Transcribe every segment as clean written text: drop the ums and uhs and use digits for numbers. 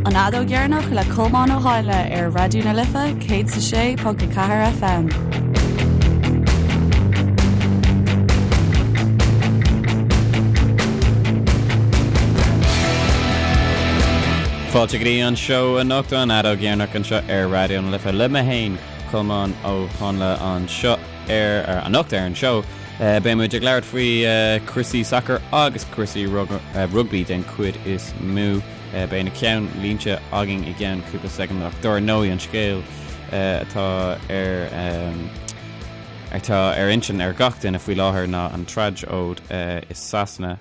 An Fheadóg Dheireanach le Colmán Ó Háinle ar Raidió na Life 106.4 FM. Fáilte go dtí an seó anocht an Fheadóg Dheireanach anseo ar Raidió na Life le mé féin, Colmán Ó Háinle anseo ar anocht ar an seó. Beidh muid ag labhairt faoi cúrsaí sacair agus cúrsaí rugbaí den chuid is mó. Beidh na ceannlínte againn i gceann cúpla soicind ach dár ndóigh an scéal atá ar atá ar intinn ar gach duine faoi láthair ná an tragóid i Sasana.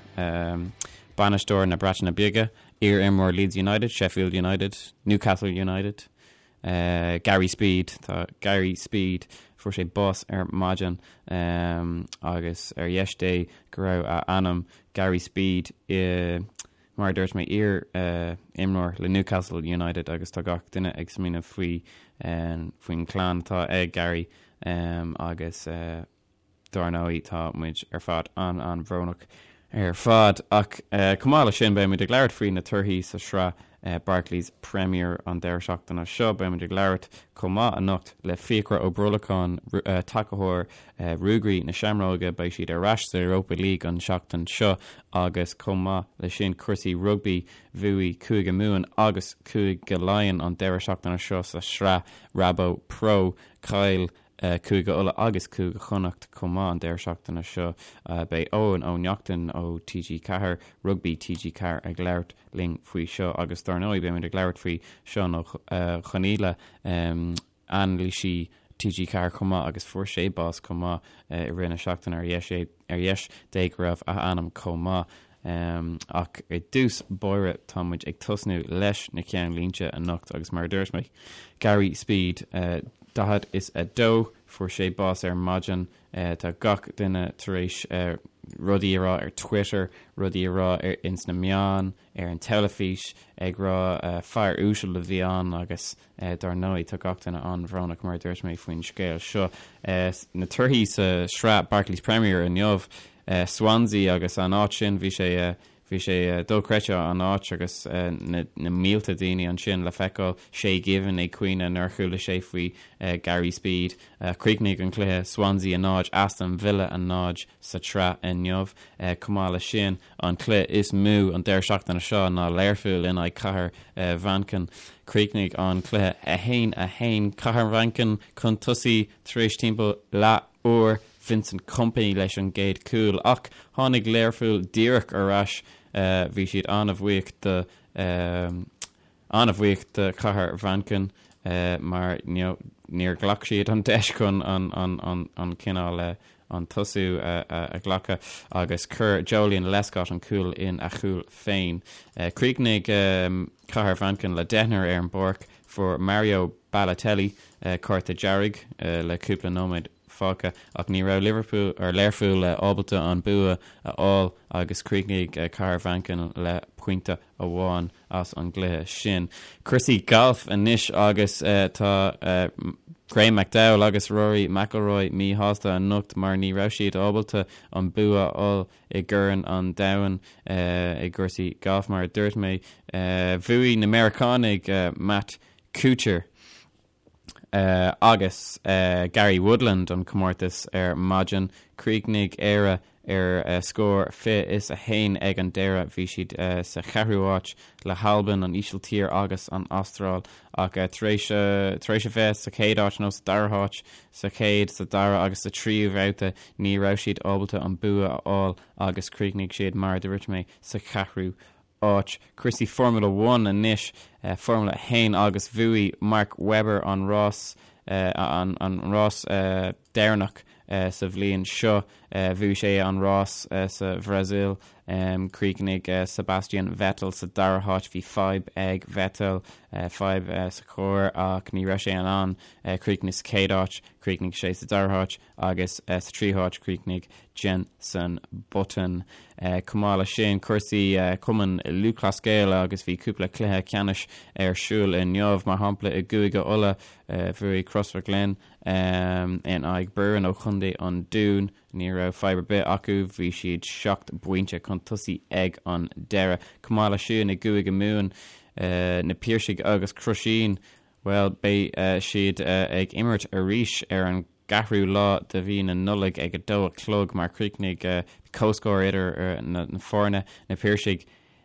Bainisteoir na Breataine Bige, iar-imreoir Leeds United, Sheffield United, Newcastle United, Gary Speed, tá Gary Speed, fuair sé bás ar maidin agus ar dheis Dé go raibh a anam Gary Speed i Mar a dúirt mé, iar-imreoir le Newcastle United agus tá gach duine ag smaoineamh faoi faoin chlann atá ag Gary agus dár ndóigh tá muid ar fad an-an-bhrónach ar fad. Ach chomh maith leis sin beidh muid ag labhairt faoi na torthaí sa sraith Barclays Premier an deireadh seachtaine seo. Beidh muid ag labhairt chomh maith anocht le Fiachra Ó Brolacháin, tacaitheoir Ruagairí na Seamróige, beidh siad ar ais sa Europa League an tseachtain seo agus chomh maith leis sin cúrsaí rugbaí, bhuaigh Cúige Mumhan agus Cúige Laighean an deireadh seachtaine seo sa sraith Rabo Pro. Chaill Cúige Uladh agus Cúige Chonnacht chomh maith an deireadh seachtaine seo. Beidh Eoin Ó Neachtain ó TG4, Rugbaí TG4 ag labhairt linn faoi seo agus dár ndóigh beimid ag labhairt faoi Seán Ó Conghaile, anailísí TG4 chomh maith agus fuair sé bás chomh maith i rith na seachtaine ar dheis ar dheis Dé go raibh a anam chomh maith. Ach i dtús báire tá muid ag tosnú leis na ceannlínte anocht agus mar a dúirt mé, Gary Speed, 42, fuair sé bás ar maidin. Tá gach duine tar éis rudaí a rá ar Twitter, rudaí a rá ins na meáin, ar an teilifís, ag rá fear uasal a bhí ann agus Dar ndóigh, tá gach duine an-bhrónach, mar a dúirt mé, faoin scéal seo. Na torthaí sa sraith Barclays Premier inniu, Swansea agus an áit sin, bhí sé bhí sé dochreidte an áit agus na mílte daoine ansin le feiceáil, Shay Given ag caoineadh nuair a chuala sé faoi Gary Speed. Chríochnaigh an cluiche Swansea 0, Aston Villa 0 sa tsraith inniu. Chomh maith leis sin, An cluiche is mó an deireadh seachtaine seo ná Learpholl in aghaidh Cathair Mhanchain. Chríochnaigh an cluiche 1, 1. Cathair Mhanchain chun tosaigh tar éis timpeall leath uair, Vincent Kompany leis an gcéad chúl ach tháinig Learpholl díreach ar ais. Bhí siad an-bhuíoch do. An-bhuíoch do Chathair Mhanchain mar níor ghlac siad an deis chun an cineál an tosú a ghlacadh agus chuir Joleon Lescott an cúl in a chúl féin. Chríochnaigh Cathair Mhanchain le deichniúr ar an bpáirc. Fuair Mario Balotelli cárta dearg le cúpla nóiméad fágtha ach ní raibh Liverpool or Learpholl ábalta an bua a fháil agus chríochnaigh Cathair Mhanchain le pointe amháin as an gcluiche sin. Cúrsaí gailf anois agus tá Graham McDowell agus Rory McIlroy míshásta anocht mar ní raibh siad ábalta an bua a fháil i gCorn an Domhain i gcúrsaí gailf. Mar a dúirt mé, bhuaigh na Meiriceánaigh Matt Kuchar. agus Gary Woodland an comórtas ar maidin. Chríochnaigh Éire ar scór 21 ag an deireadh. Bhí siad sa cheathrú háit le hAlbain, an Ísiltír agus an Astráil ach tar éis tar éis a bheith sa chéad áit nó sa dara háit sa chéad, sa dara agus sa tríú bhabhta ní raibh siad ábalta an bua a fháil agus chríochnaigh siad mar a dúirt mé sa cheathrú áit. Cúrsaí Formula One anois, Formula 1 agus bhuaigh Mark Webber an rás an rás deireanach sa bhliain seo. Bhuaigh sé an rás sa Bhrasaíl. Chríochnaigh Sebastian Vettel sa dara háit. Bhí fadhb ag Vettel, fadhb sa charr ach ní raibh sé in ann críochnú sa chéad áit. Chríochnaigh sé sa dara háit. agus sa tríú háit chríochnaigh Jenson Button. Chomh maith leis sin, cúrsaí Cumann Lúthchleas Gael agus bhí cúpla cluiche ceannais ar siúl inniu, mar shampla i gCúige Uladh bhuaigh Crossmaglen in aghaidh Burren ó Chontae an Dúin. Ní raibh fadhb ar bith acu, bhí siad seacht bpointe chun tosaigh ag an deireadh. Chomh maith leis sin i gCúige Mumhan. Na Piarsaigh agus Crusheen, bhuel, beidh siad ag imirt arís ar an gceathrú lá de mhí na Nollag ag a dó a chlog mar chríochnaigh comhscór idir na foirne, Na Piarsaigh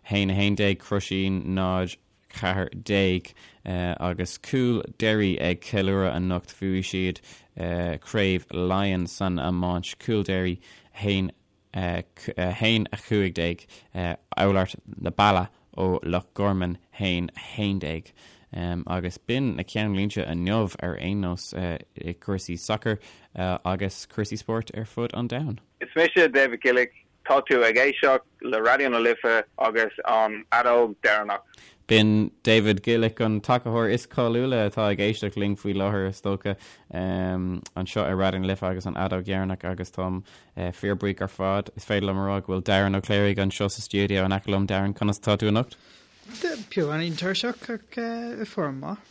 1, 11, Crusheen 0, 14, agus Cúil Derry ag ceiliúradh anocht. Bhuaigh siad Craobh Laighean san iomáint, Cúil Derry 1, 1, 15, Oulart na Balla ó Loch Gorman 1, 11. Agus b'in na ceannlínte inniu ar aon nós i gcúrsaí sacair agus cúrsaí spóirt ar fud an domhain. Is mise David Gillick Tá tú ag éisteacht le Raidió na Life agus an Fheadóg Dheireanach. B'in David Gillick, an tacaitheoir is cáiliúla atá ag éisteacht linn faoi láthair, is dócha, anseo ar Raidió na Life agus an Fheadóg Dheireanach agus táim fíorbhuíoch ar fad. Is féidir liom a rá go bhfuil Darren Ó Cléirigh anseo sa stiúideo in aice liom. Darren, conas atá tú anocht? Beagáinín tuirseach ach i bhfoirm maith.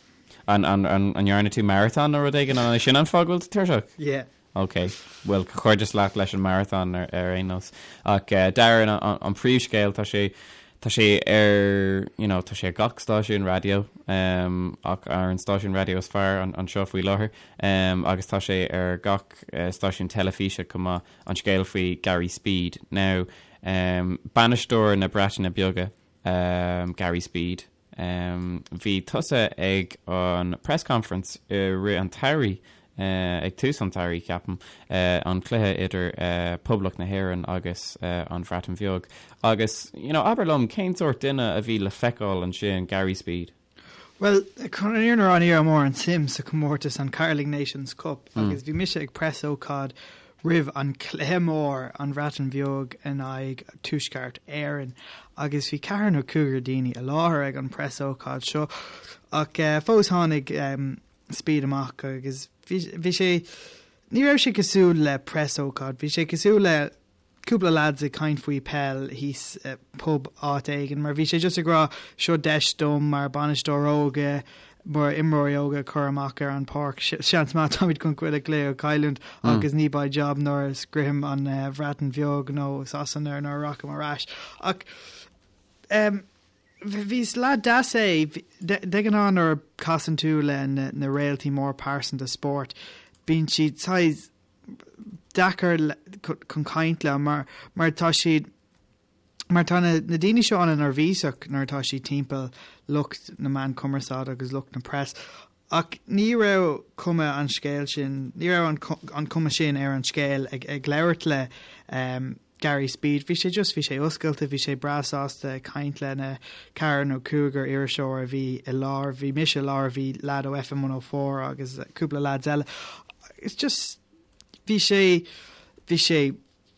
An ndearna tú maratón nó rud éigin? An é sin an fáth go bhfuil tú tuirseach? Yeah. Ok, bhuel, comhghairdeas leat leis an maratón ar aon nós. Ach Darren, an príomhscéal, tá sé, tá sé ar, you know, tá sé ar gach stáisiún raidió, ach ar an stáisiún raidió is fearr anseo faoi láthair, agus tá sé ar gach stáisiún teilifíse chomh maith, an scéal faoi Gary Speed. Now, bainisteoir na Breataine Bige, Gary Speed, Bhí tusa ag an press conference i rith an tsamhraidh, ag tús an tsamhraidh, ceapaim, an cluiche idir Poblacht na hÉireann agus an Bhreatain Bheag. Agus, you know, abair liom, cén sórt duine a bhí le feiceáil ansin, Gary Speed? Bhuel, chun an fhírinne a rá, ní raibh mórán suim sa chomórtas, an Carling Nations Cup, agus bhí mise ag preasócáid roimh an chluiche mór, an Bhreatain Bheag in aghaidh Tuaisceart Éireann, agus bhí ceathrar nó cúigear daoine i láthair ag an preasócáid seo, ach fós tháinig Speed amach agus bhí sé, ní raibh sé cosúil le preasócáid, bhí sé cosúil le cúpla lads ag caint faoi peil thíos i pub áit éigin mar bhí sé just ag rá seo deis dom mar bainisteoir óga mar imreoirí óga a chur amach ar an páirc seans maith táimid chun chuile chluiche a chailliúint agus ní beidh job nuair a sroichim an Bhreatain Bheag nó Sasana nuair a rachaim ar ais ach um, bhí is leaid deas é de ghnáth nuair a casann tú le na, na réaltaí mór pearsanta spóirt bíonn siad saghas deacair chun caint leo mar mar tá siad mar tá na na daoine seo an-neirbhíseach nuair atá siad timpeall lucht na meán cumarsáide agus lucht na press ach ní raibh cuma an scéil sin ní raibh an an cuma sin ar an scéal ag ag labhairt le um, Gary Speed bhí sé just bhí sé oscailte bhí sé breá sásta ag caint le na ceathrar nó cúigear iriseoir a bhí i láthair bhí mise i láthair bhí lad ó FM 104 agus cúpla lads eile it's just bhí sé bhí sé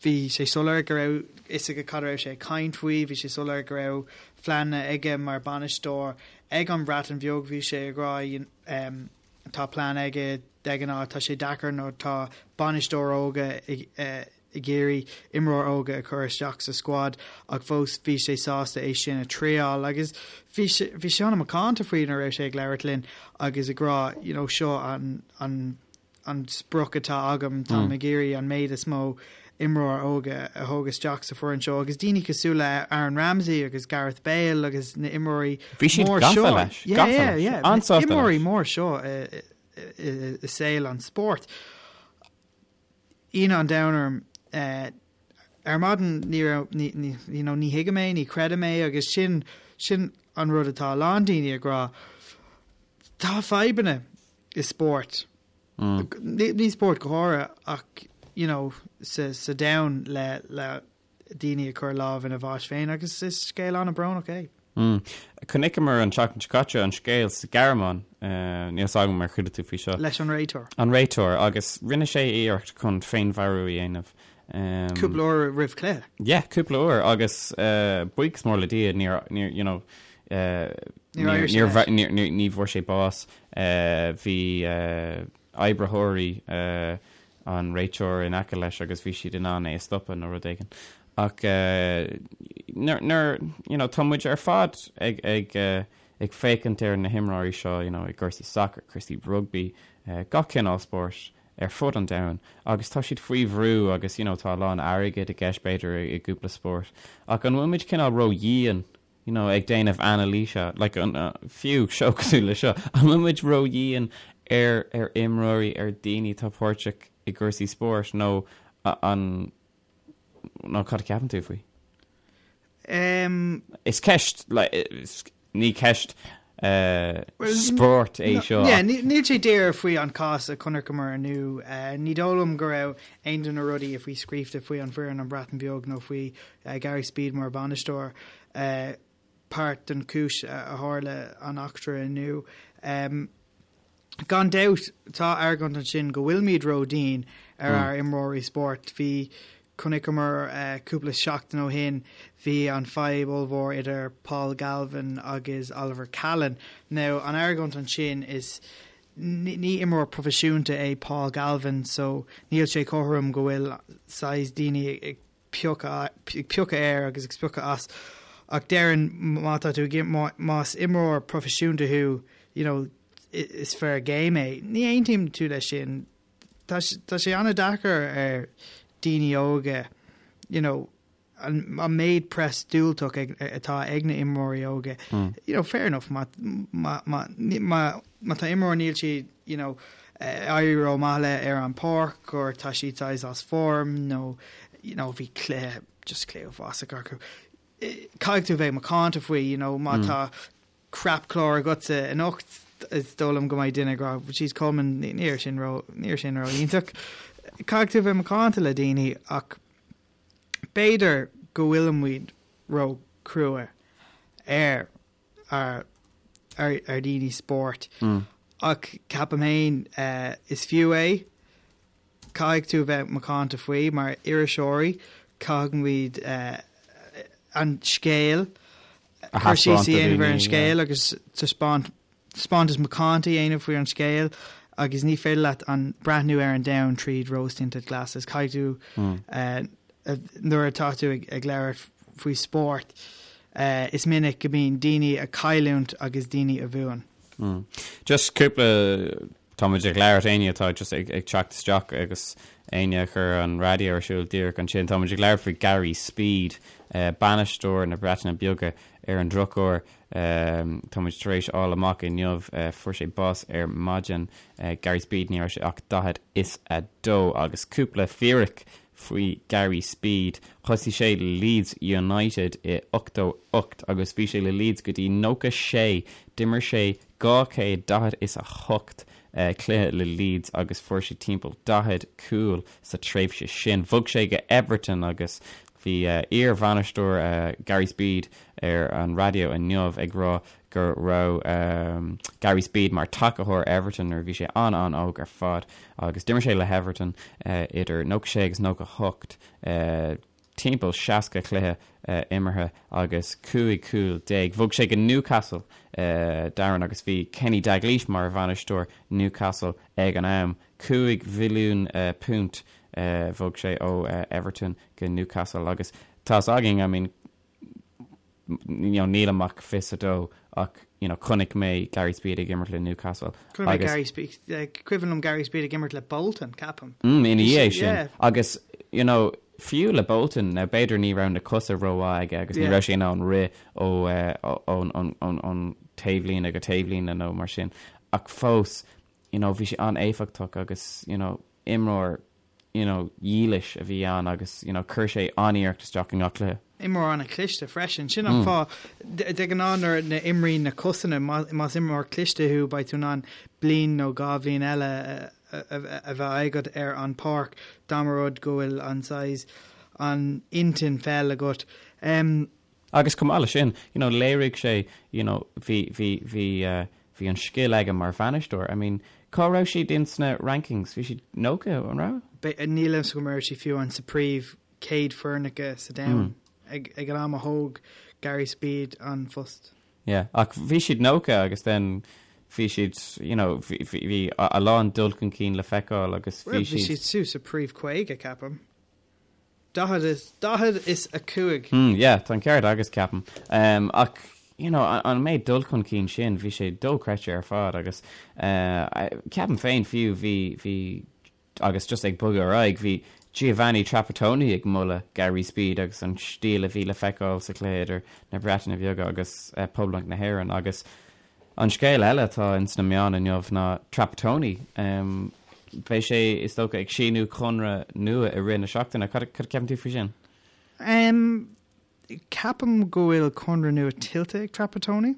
bhí sé soiléir go raibh fhios aige cad a raibh sé ag caint faoi bhí sé soiléir go raibh pleananna aige mar bainisteoir ag an Bhreatain Bheag bhí sé ag rá um, tá plean aige de ghnáth tá sé deacair nó tá bainisteoir óga ag uh, ag iarraidh imreoir óga a chur isteach sa squad ach fós bhí sé sásta é sin a triail agus bhí sé bhí sé an-mhacánta faoi nuair a raibh sé ag labhairt linn agus ag rá you know seo an an an sprioc atá agam táim mm. ag iarraidh an méid is mó imreoir óga a thóg isteach sa foireann seo agus daoine cosúil le Aaron Ramsey agus Gareth Bale agus na imreoirí mór seo imreoirí mór seo i saol an spóirt. Ionadh an domhain orm. Ar maidin ní raibh, ní, ní, you know, ní thuigim é, ní chreidim é agus sin, sin an rud atá a lán daoine ag rá. Tá fadhbanna i spórt. Mm. Ní spórt go háirithe ach, you know, sa, sa domhan le, le daoine ag cur lámh ina bháis féin agus is scéal an-bhrónach é. Mm. Chonaiceamar an tseachtain seo caite an scéal sa Ghearmáin, níl fhios agam ar chuala tú faoi seo. Leis an réiteoir. An réiteoir, agus rinne sé iarracht chun féinmharú a dhéanamh. Cúpla uair roimh chluiche. Yeah, cúpla uair, agus buíochas mór le Dia níor, níor, you know, níor, níor, níor, ní bhfuair sé bás. Bhí oibritheoirí an réiteoir in aice leis agus bhí siad in ann é a stopadh nó rud éigin. Ach nuair, you know, tá muid ar fad ag, ag, ag féachaint ar na himreoirí seo, you know, i gcúrsaí sacair, cúrsaí rugbaí, gach cineál spóirt ar fud an domhain agus tá siad faoi bhrú agus, you know, tá a lán airgid i gceist b'fhéidir i gcúpla spórt. Ach an bhfuil muid cineál ró-dhian? you know, ag déanamh anailíse, like an, fiú seó cosúil le seo, an bhfuil muid ró-dhian ar, ar imreoirí, ar daoine atá páirteach i gcúrsaí spóirt nó an, nó cad a cheapann tú faoi? Um, Is ceist, like, is, ní ceist uh, spóirt é seo. Yeah, níl sé díreach faoi an cás a chonaiceamar inniu. Uh, ní dóigh liom go raibh aon de na rudaí a bhí scríofa faoi an foireann an Bhreatain Bheag nó faoi uh, Gary Speed mar bhainisteoir uh, páirt den chúis a tharla an eachtra inniu. Um, Gan dabht, tá argóint ansin go bhfuilimid ró-dhian ar ár imreoirí spóirt. Bhí, chonaiceamar cúpla seachtain ó shin, bhí an fadhb ollmhór idir Paul Galvin agus Oliver Callan. Now, an argóint ansin is ní imreoir proifisiúnta é Paul Galvin so níl sé cothrom go bhfuil saghas daoine ag piocadh ag piocadh air agus ag spochadh as ach déarfainn má tá tú ag más imreoir proifisiúnta thú you know is fair game é. Ní aontaím tú leis sin. Tá tá sé an-deacair ar daoine óga you know an an méid press diúltach ag atá ag na imreoirí óga. You know fair enough má má má má má tá imreoir níl siad you know éirí ró-mhaith le ar an páirc or tá siad saghas as form nó you know bhí cluiche just cluiche uafásach acu. Caithfidh tú bheith macánta faoi you know má tá crap clár agatsa anocht is dóigh liom go mbeidh duine ag rá jeez Colman ní raibh sin ró ní raibh sin ró iontach. Caithfidh tú bheith macánta le daoine ach b'fhéidir go bhfuilimid ró crua ar ar ar daoine spóirt ach ceapaim féin is fiú é. Caithfidh tú a bheith macánta faoi mar iriseoirí, caithfimid an scéal cur síos a dhéanamh ar an scéal agus taispeáint taispeántas macánta a dhéanamh faoi an scéal agus ní féidir leat an breathnú ar an domhan tríd rose tinted glasses. Caithfidh tú nuair atá tú ag labhairt faoi spórt, is minic go mbíonn daoine ag cailliúint agus daoine a bhuann. Just cúpla, tá muid ag labhairt, éinne atá just ag teacht isteach agus éinne a chuir an raidió ar siúl díreach ansin, tá muid ag labhairt faoi Gary Speed, bainisteoir na Breataine Bige ar an drochuair. Tá muid tar éis fháil amach inniu, fuair sé bás ar maidin, Gary Speed, ní raibh sé ach 42 agus cúpla fíric faoi Gary Speed. Thosaigh sé le Leeds United i 88 agus bhí sé le Leeds go dtí 96. D'imir sé 248 cluiche le Leeds agus fuair sé timpeall 40 cúl sa tréimhse sin. Bhog sé go Everton agus bhí iar-bhainisteoir Gary Speed ar an raidió inniu ag rá go raibh Gary Speed mar tacaitheoir Everton nuair a bhí sé an-an-óg ar fad agus d'imir sé le hEverton idir 96 agus 98, timpeall 60 cluiche imeartha agus 15 cúl. Bhog sé go Newcastle, Darren, agus bhí Kenny Dalglish mar bhainisteoir Newcastle ag an am. £5 mhilliún bhog sé ó Everton go Newcastle agus tá's againn, I mean, you know, nílim ach 22 ach you know, chonaic mé Gary Speed ag imirt le Newcastle. Chonaic mé Gary Speed, cuimhin liom Gary Speed ag imirt le Bolton, ceapaim. Mm, ina dhiaidh sin. Yeah. Agus, you know, fiú le Bolton, now b'fhéidir ní raibh na cosa rómhaith aige agus ní raibh sé in ann rith ó ón ón ón ón taobhlíne go taobhlíne nó mar sin. Ach fós, you know, bhí sé an-éifeachtach agus, you know, imreoir you know, dhílis a bhí ann agus, you know, chuir sé an-iarracht isteach i ngach cluiche. Imreoir an-chliste freisin. Sin an fáth, de ghnáth nuair a imríonn na cosanna, más imreoir cliste thú, beidh tú in ann bliain nó dhá bhliain eile a bheith agat ar an páirc dá mba rud go bhfuil an saghas, an intinn pheil agat. Agus chomh maith leis sin, you know, léirigh sé, you know, bhí, bhí, bhí, eh, bhí an scil aige mar bhainisteoir. I mean, cá raibh siad in sna rankings? Bhí siad 90, an raibh? Níl a fhios agam an raibh siad fiú an sa príomh 100 foirneacha sa domhan ag, ag an am a thóg Gary Speed an phost. Yeah, ach bhí siad 90 agus then bhí siad, you know, bhí, bhí, bhí a lán dul chun cinn le feiceáil agus bhí siad. Bhí siad suas sa príomh 50, ceapaim. 45. Hmm, yeah, tá an ceart agat ceapaim. Um, ach, you know, an méid dul chun cinn sin, bhí sé dochreidte ar fad agus uh, ceapaim féin fiú bhí, bhí, agus just ag bogadh ar aghaidh, bhí Giovanni Trapattoni ag moladh Gary Speed agus an stíl a bhí le feiceáil sa chluiche idir na Breataine Bheaga agus Poblacht na hÉireann agus an scéal eile atá ins na meáin inniu ná Trapattoni. Beidh sé, is dócha, ag síniú conradh nua i rith na seachtaine. Cad a cheapann tú faoi sin? Ceapaim go bhfuil conradh nua tuillte ag Trapattoni.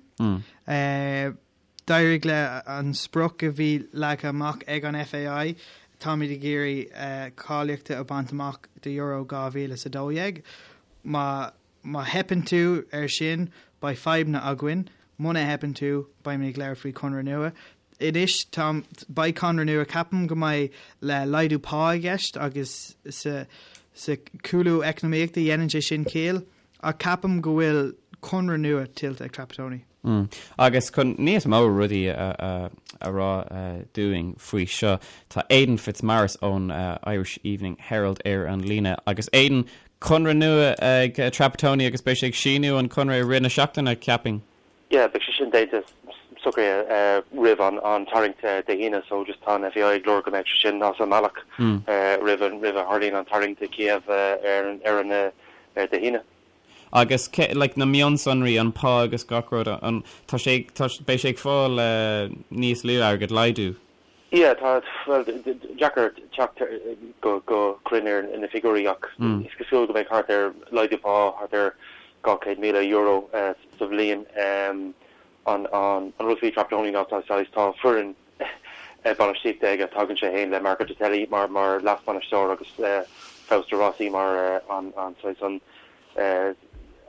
D'éirigh le an sprioc a bhí leagtha amach ag an FAI, táimid ag iarraidh cáilíochta a bhaint amach do Euro 2012. Má má theipeann tú ar sin, beidh fadhbanna againn. Muna theipeann tú, beimid ag labhairt faoi conradh nua. Anois, tá, beidh conradh nua, ceapaim go mbeidh le laghdú pá i gceist agus sa sa cúlú eacnamaíochta dhéanann sé sin ciall. Ach ceapaim go bhfuil conradh nua tuillte ag Trapattoni. Agus chun níos mó rudaí a rá dúinn faoi seo, tá Aidan Fitzmaurice ón Irish Evening Herald ar an líne. Agus Aidan, conradh nua ag Trapattoni agus beidh sé ag síniú an conradh i rith na seachtaine, ceapaim. Yeah, beidh sé sin déanta, socraithe roimh an tarraingt Dé hAoine so just tá an FAI ag lorg go mbeidh sé sin as an mbealach roimh a tharlaíonn an tarraingt i Kiev ar an Dé hAoine. Agus cé, like, na mionsonraí, an pá agus gach rud, an, tá sé, tá, beidh sé ag fáil níos lú airgid, laghdú? Yeah, tá, bhuel, deacair teacht go, go cruinn ar na figiúirí ach is cosúil go mbeidh thart ar, laghdú pá thart ar €200,000 sa bhliain. An, an rud faoi Trapattoni ná tá saghas, tá foireann bainistíochta aige, tagann sé féin le Marco Tardelli mar, mar leas-bhainisteoir agus Fausto Rossi mar an, an saghas, an,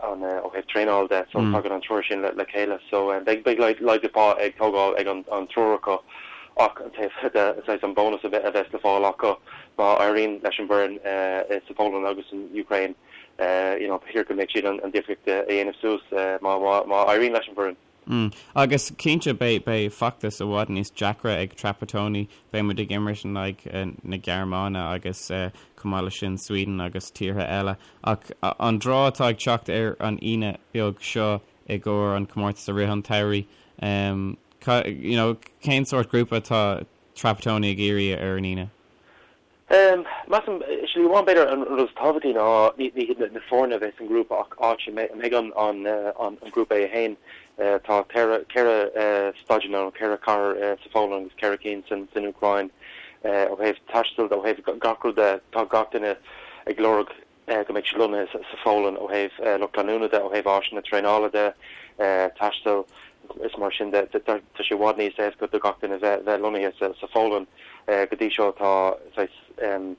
an ó thaobh traenáil de so tagann an triúr sin le chéile so beidh beidh laghdú pá ag tógáil ag an an triúr acu ach an taobh de saghas an bónas a bheas le fáil acu má éiríonn leis an bhfoireann sa Pholainn agus san Úcráin you know b'fhéidir go mbeidh siad an difríocht a dhéanamh suas má má éiríonn leis an bhfoireann. Agus cinnte beidh beidh feachtas i bhfad níos deacra ag Trapattoni, beidh muid ag imirt in aghaidh na Gearmáine agus chomh maith leis sin Sweden agus tíortha eile. Ach an draw atá ag teacht ar an Aoine beag seo i gcomhair an comórtas i rith an tsamhraidh, you know, cén sórt grúpa atá Trapattoni ag iarraidh ar an Aoine? Measaim, slí amháin, b'fhéidir an rud is tábhachtaí ná ní hiad na foirne a bheidh san ngrúpa ach áit a mbeidh an grúpa é féin. Tá ceithre staidiam nó ceithre chathair sa Pholainn agus ceithre cinn san Úcráin. Ó thaobh taistil de, ó thaobh gach rud de, tá gach duine ag lorg go mbeidh siad lonnaithe sa Pholainn ó thaobh lucht leanúna de, ó thaobh áiseanna traenála de, taistil is mar sin de. Tá sé i bhfad níos éasca do gach duine bheith lonnaithe sa Pholainn. Go dtí seo tá saghas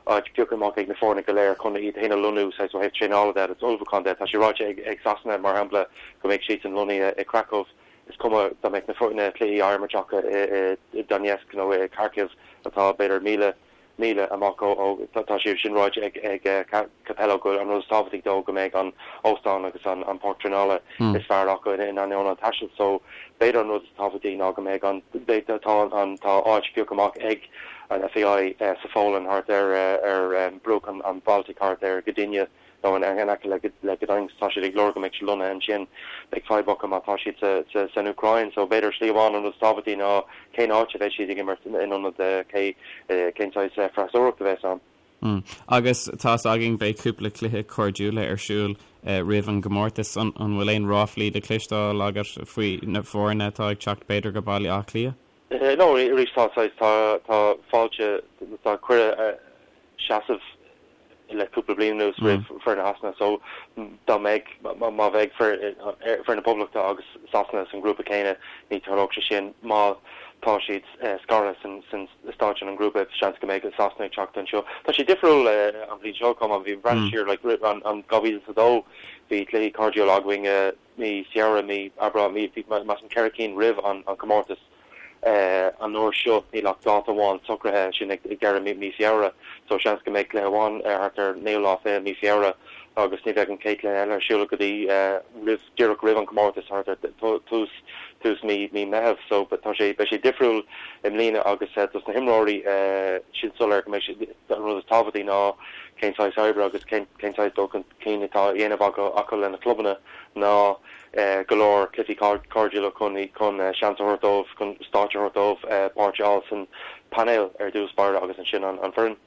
áit pioctha amach ag na foirne go léir chun iad féin a lonnú saghas ó thaobh traenála de agus ullmhúcháin de. Tá sé ráite ag Sasana, mar shampla, go mbeidh siadsan lonnaithe i Kraków. Is cuma dá mbeadh na cluichí á imirt acu i Donetsk nó i Kharkiv atá b'fhéidir 1,000 míle amach ó, tá sé sin ráite ag Capello go an rud is tábhachtaí dó go mbeidh an óstán agus an páirc traenála is fearr acu in ainneoin an taistil so b'fhéidir an rud is tábhachtaí ná go mbeidh an, tá an, tá áit pioctha amach ag an FAI sa Pholainn thart ar ar bruach an Baltic thart ar Gdynia. nó in aice le Gdańsk, tá siad ag lorg go mbeidh siad lonnaithe ansin. Beidh fadhb acu má tá siad san Úcráin. So b'fhéidir slí amháin an rud is tábhachtaí ná cén áit a bheidh siad ag imirt in ionad cé cén saghas freasúracht a bheas ann. Agus tá's againn beidh cúpla cluiche cairdiúla ar siúl roimh an gcomórtas. An bhfuil aon ráflaí le cloisteáil agat faoi na foirne atá ag teacht b'fhéidir go Baile Átha Cliath? No, arís tá saghas, tá tá fáilte, tá cuireadh seasamh le cúpla bliain anuas roimh foireann Shasana so dá mbeidh, má bheidh foireann na Poblachta agus Sasana san grúpa céanna ní tarlódh sé sin. Má tá siad scartha san stáit an grúpa seans go mbeidh Sasana ag teacht anseo. Tá sé difriúil an bhliain seo chomh maith, bhí breathnú siar like an 2002 bhí cluichí cairdiúla againn mí Feabhra, mí Aibreán, mí, bhí measaim ceithre cinn roimh an comórtas. An uair seo níl ach dáta amháin socraithe, sin ag deireadh mí Feabhra. So seans go mbeidh cluiche amháin thart ar naoú lá fiche mí Feabhra agus ní bheidh an chéad chluiche eile ar siúl go dtí roimh, díreach roimh an comórtas, thart ar tús, tús mí, mí Meitheamh. So tá sé, beidh sé difriúil i mbliana agus dos na himreoirí sin soiléir go mbeidh sé, an rud is tábhachtaí ná cén saghas oibre agus cén, cén saghas dul chun cinn atá á dhéanamh acu lena clubanna ná go leor cluichí cairdiúla chun seans a thabhairt dóibh, chun stáitse a thabhairt dóibh páirt a fháil san painéal ar dtús báire agus ansin an foireann.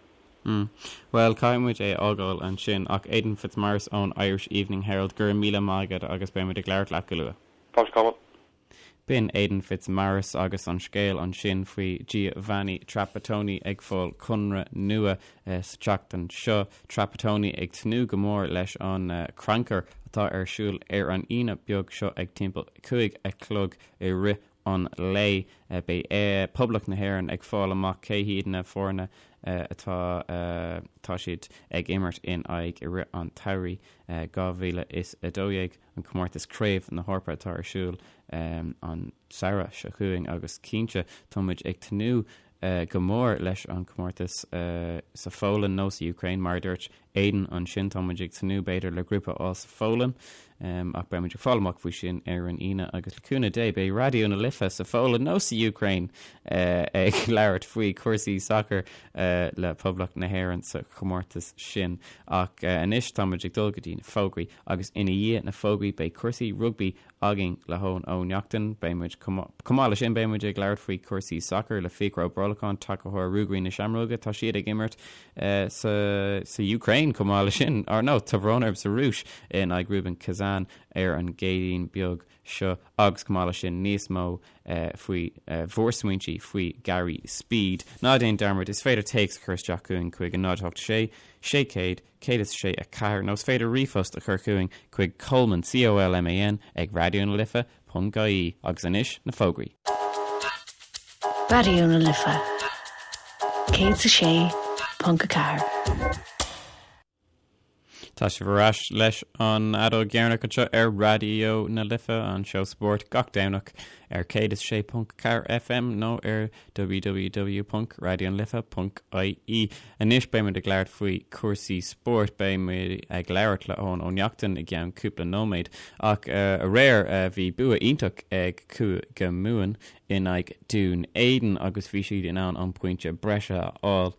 Bhuel, caithfidh muid é a fhágáil ansin, ach Aidan Fitzmaurice ón Irish Evening Herald, go raibh míle maith agat agus beidh muid ag labhairt leat go luath. Fáilte Colman. B'in Aidan Fitzmaurice agus an scéal ansin faoi Giovanni Trapattoni ag fáil conradh nua sa tseachtain seo. Trapattoni ag tnúth go mór leis an crannchur atá ar siúl ar an Aoine beag seo ag timpeall 5 a chlog i rith an lae. Beidh Poblacht na hÉireann ag fáil amach cé hiad na foirne atá tá siad ag imirt in aghaidh i rith an tsamhraidh 2012. an comórtas Craobh na hEorpa atá ar siúl an samhradh seo chugainn agus cinnte tá muid ag tnúth go mór leis an comórtas sa Pholainn nó sa Ukraine mar a dúirt Aidan ansin tá muid ag tnúth b'fhéidir le grúpa a fháil sa Pholainn ach beidh muid ag fáil amach faoi sin ar an Aoine agus le cúnamh Dé beidh Raidió na Life sa Pholainn nó sa Ukraine ag labhairt faoi cúrsaí sacair le Poblacht na hÉireann sa chomórtas sin ach anois tá muid ag dul go dtí na fógraí Agus ina dhiaidh na fógraí beidh cúrsaí rugbaí againn le hEoin Ó Neachtain. Beidh muid, chomh maith leis sin, beidh muid ag labhairt faoi chúrsaí sacair le Fiachra Ó Brolacháin, tacaitheoir Ruagairí na Seamróige. Tá siad ag imirt sa sa Ukraine chomh maith leis sin, or no, tá brón orm, sa Rúis in aghaidh Rubin Kazan ar an gCéadaoin beag seo agus chomh maith leis sin níos mó faoi bhur smaointe faoi Gary Speed. Ná déan dearmad, is féidir téacs a chur isteach chugainn chuig 0 8 6 600 106 4 nó is féidir ríomhphost a chur chugainn chuig Colman, C-O-L-M-A-N, ag Raidió na Life ponc ie Agus anois, na fógraí. Raidió na Life 106.4. Tá sibh ar ais leis an Fheadóg Dheireanach anseo ar Raidió na Life, an seó spóirt gach Domhnach ar 106.4 FM nó ar www.raidionalife.ie Anois beidh muid ag labhairt faoi chúrsaí spóirt. Beidh muid ag labhairt le Eoin Ó Neachtain i gceann cúpla nóiméad. Ach aréir bhí bua iontach ag Cúige Mumhan in aghaidh Dún Éideann agus bhí siad in ann an pointe breise a fháil.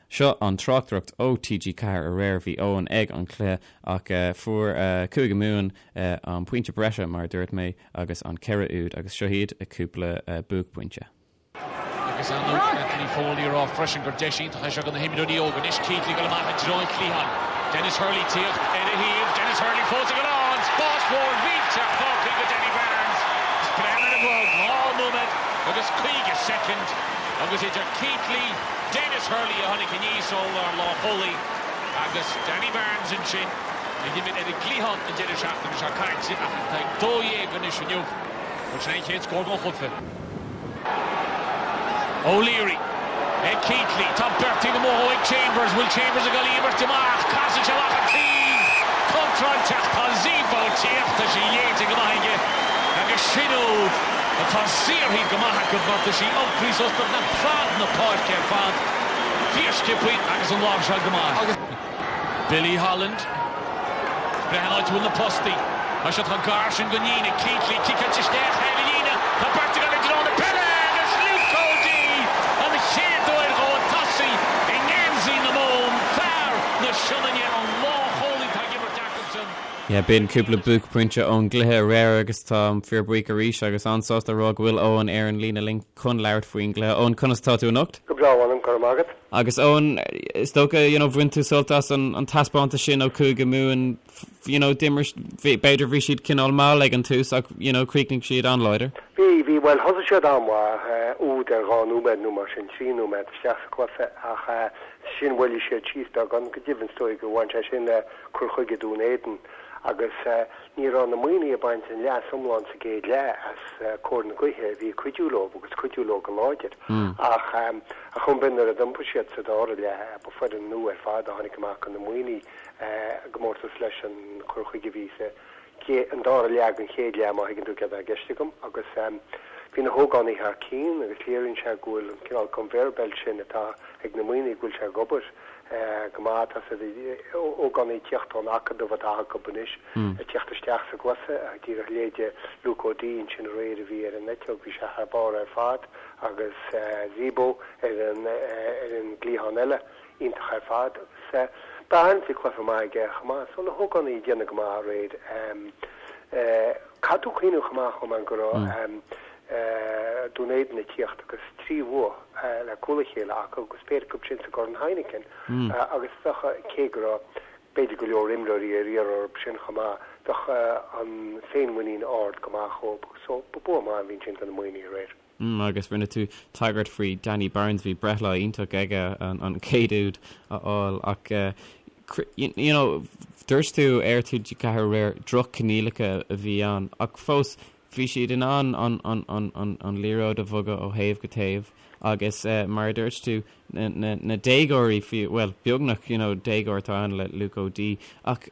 Seo an tráchtaireacht ó TG4 aréir. Bhí Eoin ag an chluiche ach fuair Cúige Mumhan an pointe breise mar a dúirt mé. agus an 4 úd agus seo iad a cúpla buaicphointe. Agus ar ndóigh Anthony Foley ag rá freisin gur deis iontach é seo do na himreoirí óga. Anois Keatley ag dul amach i dtreo an chliatháin. Denis Hurley tíocht ar a thaobh. Denis Hurley fós ag dul ann. Spás mhór mhillteach fágtha do Danny Barnes. Is breathnaigh ar an gclog, 2 nóiméad agus 50 soicind agus idir Keatley, Denis Hurley a tháinig aníos ó lár lánchúlaí agus Danny Barnes ansin. A d'imir ar an gcliathán an deireadh seachtaine seo caite ach atá ag 12 anois inniu. Bhuel, sin é an chéad scór den chluiche. O'Leary ag Keatley. Tá beirt taobh amuigh dhó ag Chambers. Bhfuil Chambers ag dul í imirt amach? Casann sé amach an taobh. Contráilteach. Tá Zebo tíocht. Tá sí léite go maith aige. Agus sin úd atá saothraithe go maith acu mar tá sí iompraithe suas beagnach fad na páirce ar fad. Fíorsciobtha agus an láimhseáil go maith. Billy Holland. Breathnaigh an áit a bhfuil na postaí. Tá siad chomh gar sin don líne. Keatley ciceáilte isteach thar an líne. Tá beirt ag dul i dtreo na peile agus Luke O'Dea an chéad uair dhó ag tosaí i ngeansaí na Mumhan. Fear na Sionainne an lánchúlaí atá ag imirt acusan. Yeah, b'in cúpla buaicphointe ón gcluiche aréir agus táim fíorbhuíoch arís agus an-sásta a rá go bhfuil Eoin ar an líne linn chun labhairt faoin gcluiche. Eoin, conas tá tú anocht? Go breá, mh'anam, go raibh maith agat. Agus Eoin, is dócha, you know, bhain tú sult as an an taispeántas sin ó Chúige Mumhan, you know, d'imir, b'fhéidir bhí siad cineál mall ag an tús ach, you know, chríochnaigh siad an-láidir. Bhí, bhí, bhuel thosaigh siad an-mhaith, úd ar dhá nóiméad nó mar sin, trí nóiméad isteach sa chluiche ach ansin mhoilligh siad síos beagán, go deimhin is dóigh gur bhain sé sin le cur chuige Dún Éideann agus Ní raibh na Muimhnigh ag baint an leas iomlán sa gcéad leath as cóir na gaoithe a bhí ag cuidiú leo agus cuidiú leo go láidir. Ach ar chuma ar bith nuair a d'iompaigh siad sa dara leath, ba foireann nua ar fad a tháinig amach do na Muimhnigh i gcomórtas leis an chur chuige a bhí sa an dara leath den chéad leath, má thuigeann tú céard atá i gceist agam. Agus bhí na hógánaigh thar cinn agus léiríonn sé go bhfuil an cineál conveyor belt sin atá ag na Muimhnigh go bhfuil sé ag obair go maith. Tá siad ógánaigh ag tíocht ón acadamh atá acu anois, ag tíocht isteach sa gcluiche. Díreach leithéide Luke O'Dea ansin aréir a bhí ar an eiteog, bhí sé thar barr ar fad agus Zebo ar an ar an gcliathán eile, iontach ar fad. Agus Barnes, bhí cluiche maith aige chomh maith. So na hógánaigh ag déanamh go maith aréir. Caithfidh tú cuimhneamh chomh maith, chomh maith go raibh. Dún Éideann ag tíocht agus 3 bhua le cúl a chéile acu agus péire acu sin sa gCorn Heineken agus bheadh, cé go raibh b'fhéidir go leor imreoirí ar iarraidh orthu sin chomh maith, bheadh an féinmhuinín ard go maith dhóibh. So ba bua maith a bhí ansin do na Muimhnigh aréir. Agus rinne tú tagairt faoi Danny Barnes, bhí breithlá iontach aige an chéad úd a fháil ach you know dúirt tú ar TG4 aréir droch-choinníollacha a bhí ann ach fós bhí siad in ann an an an an an liathróid a bhogadh ó thaobh go taobh agus mar a dúirt tú na na na déagóirí fiú bhuel beagnach you know déagóir atá ann le Luke O'Dea ach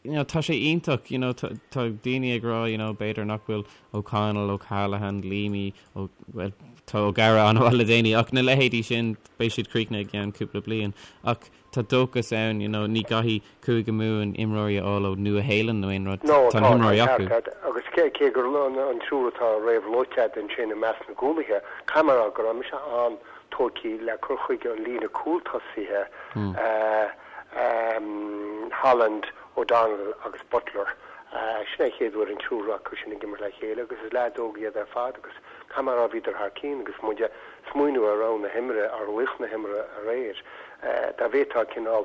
you know, tá sé iontach, you know, tá daoine ag rá, you know, b'fhéidir nach bhfuil O'Connell, O'Callaghan, Leamy, Ó, well, tá O'Gara an-mhaith le déanaí, ach na leithéidí sin, beidh siad críochnaithe i gceann cúpla bliain. Ach tá dóchas ann, you know, ní gcaithfidh Cúige Mumhan imreoirí a fháil ó Nua-Shéalainn nó aon rud, No, tá tá, na tá himreoirí ceart acu. agat. Agus cé, cé gur an, an triúr atá réamhluaite agat ansin i measc na gcúlaithe, caithfidh mé a rá go raibh mise an-tógtha le cur chuige an líne cúltosaithe, eh, Holland, O'Donnell agus Butler. Sin é an chéad uair an triúr acu sin ag imirt le chéile agus is leaids óga iad ar fad agus caithfidh mé a rá bhíodar thar cinn agus muid ag smaoineamh ar rogha na himeartha, ar laoch na himeartha aréir, dá bhféadfá cineál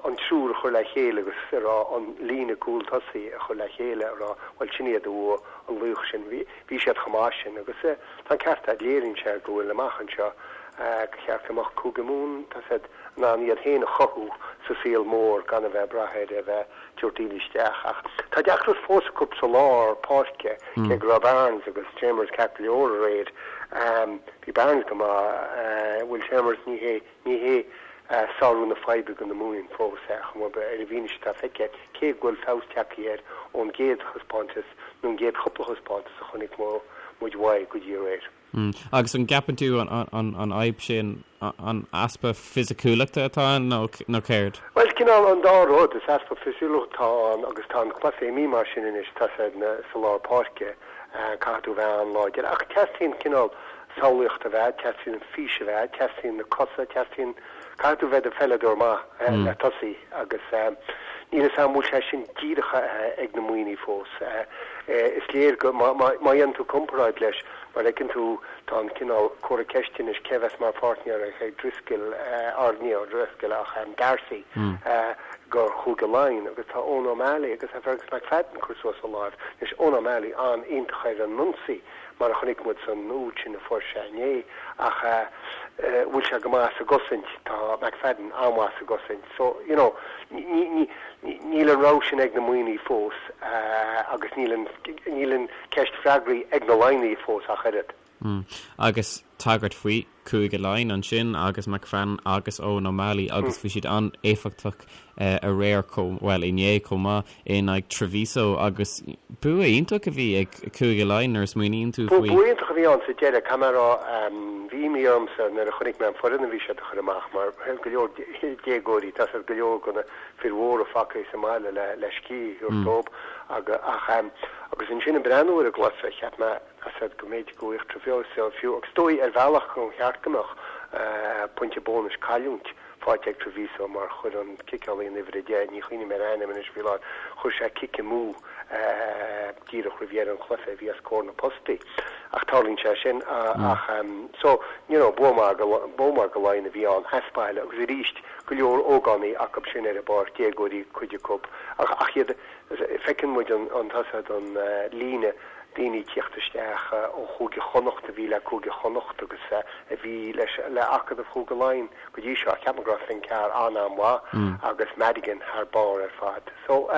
an triúr a chur le chéile agus a rá an líne cúl tosaigh a chur le chéile a rá bhuel sin iad a bhuaigh an laoch sin. Bhí siad chomh maith sin agus tá an ceart agat, léiríonn sé go bhfuil amach anseo go cheart go mbeadh Cúige Mumhan, tá siad in ann iad féin a chothú sa saol mór gan a bheith ag brath ar a bheith ag tabhairt daoine isteach. Ach tá deacracht fós acu sa lár páirce, cé go raibh Barnes agus Chambers ceart go leor aréir. Bhí Barnes go maith. Will Chambers, ní hé, ní hé sárú na faidhbe do na Muimhnigh fós é, chomh maith, ar an bhfianaise atá feicthe, cé go bhfuil feabhas tagtha air ón gcéad thaispeántas nó an gcéad chúpla thaispeántas a chonaic muid uaidh go dtí aréir. Agus an gceapann tú an fhadhb sin an easpa fisiciúlachta atá ann nó céard? Bhuel, cineál an dá rud. Is easpa fisiciúlachta atá ann agus tá an cluiche imithe mar sin anois, tá sé sa lár páirce, caithfidh tú bheith an-láidir. Ach teastaíonn cineál samhlaíocht a bheith, teastaíonn fís a bheith, teastaíonn na cosa, teastaíonn, caithfidh tú bheith i do pheileadóir maith le tosaí agus níl 'fhios a'm an bhfuil sé sin díreach ag na Muimhnigh fós. Is léir go, má dhéanann tú comparáid leis, Mar a fheiceann tú, tá an cineál comhartha ceiste anois cé a bheas mar pháirtnéir ag Driscoll, or ní O'Driscoll ach D'Arcy, do Chúige Laighean agus tá Eoin O'Malley agus tá Fergus McFadden ag cur suas a láimh. Anois, Eoin O'Malley an-iontach ar an ionsaí mar a chonaic muid san úd sin a fuair sé inné ach bhfuil sé go maith sa gcosaint? Tá McFadden an-mhaith sa gcosaint. So, you know, ní, ní, níl an rogha sin ag na Muimhnigh fós agus níl an, níl an, ceist freagraithe ag na Laighnigh fós ach oiread. Agus tagairt faoi Cúige Laighean ansin agus McFadden agus Eoin O'Malley agus bhí siad an-éifeachtach aréir chomh, bhuel inné chomh maith in aghaidh Treviso agus bua iontach a bhí ag Cúige Laighean nuair a smaoiníonn tú faoi. Bua iontach a bhí ann sa deireadh, caithfidh mé a rá. Bhí imní ormsa nuair a chonaic mé an foireann a bhí siad a chur amach mar go leor déagóirí, tá siad go leor de na fir mhóra fágtha sa mbaile le scíth a thabhairt dóibh ach agus ansin ag breathnú ar an gcluiche cheap mé said go mb'fhéidir go bhfaigheadh Treviso fiú agus is dóigh ar bhealach gur cheart go mbeadh pointe bónais cailliúint faighte ag Treviso mar chuir an ciceálaí an uimhir 10, ní chuimhním ar a ainm anois faoi láthair, chuir sé cic amú díreach roimh dheireadh an chluiche a bhí os comhair na postaí. Ach tarlaíonn sé sin ach so you know bua maith bua maith do Laighin a bhí ann as baile agus arís go leor ógánaigh acu sin ar an bpáirc, déagóirí cuid acu, ach ach iad, feiceann muid an an tá said an líne daoine ag tíocht isteach ó Chúige Chonnacht a bhí le Cúige Chonnacht agus a bhí leis le Acadamh Chúige Laighean go dtí seo. Ceapaim go raibh Finn Carr an-an-mhaith agus Madigan thar barr ar fad. So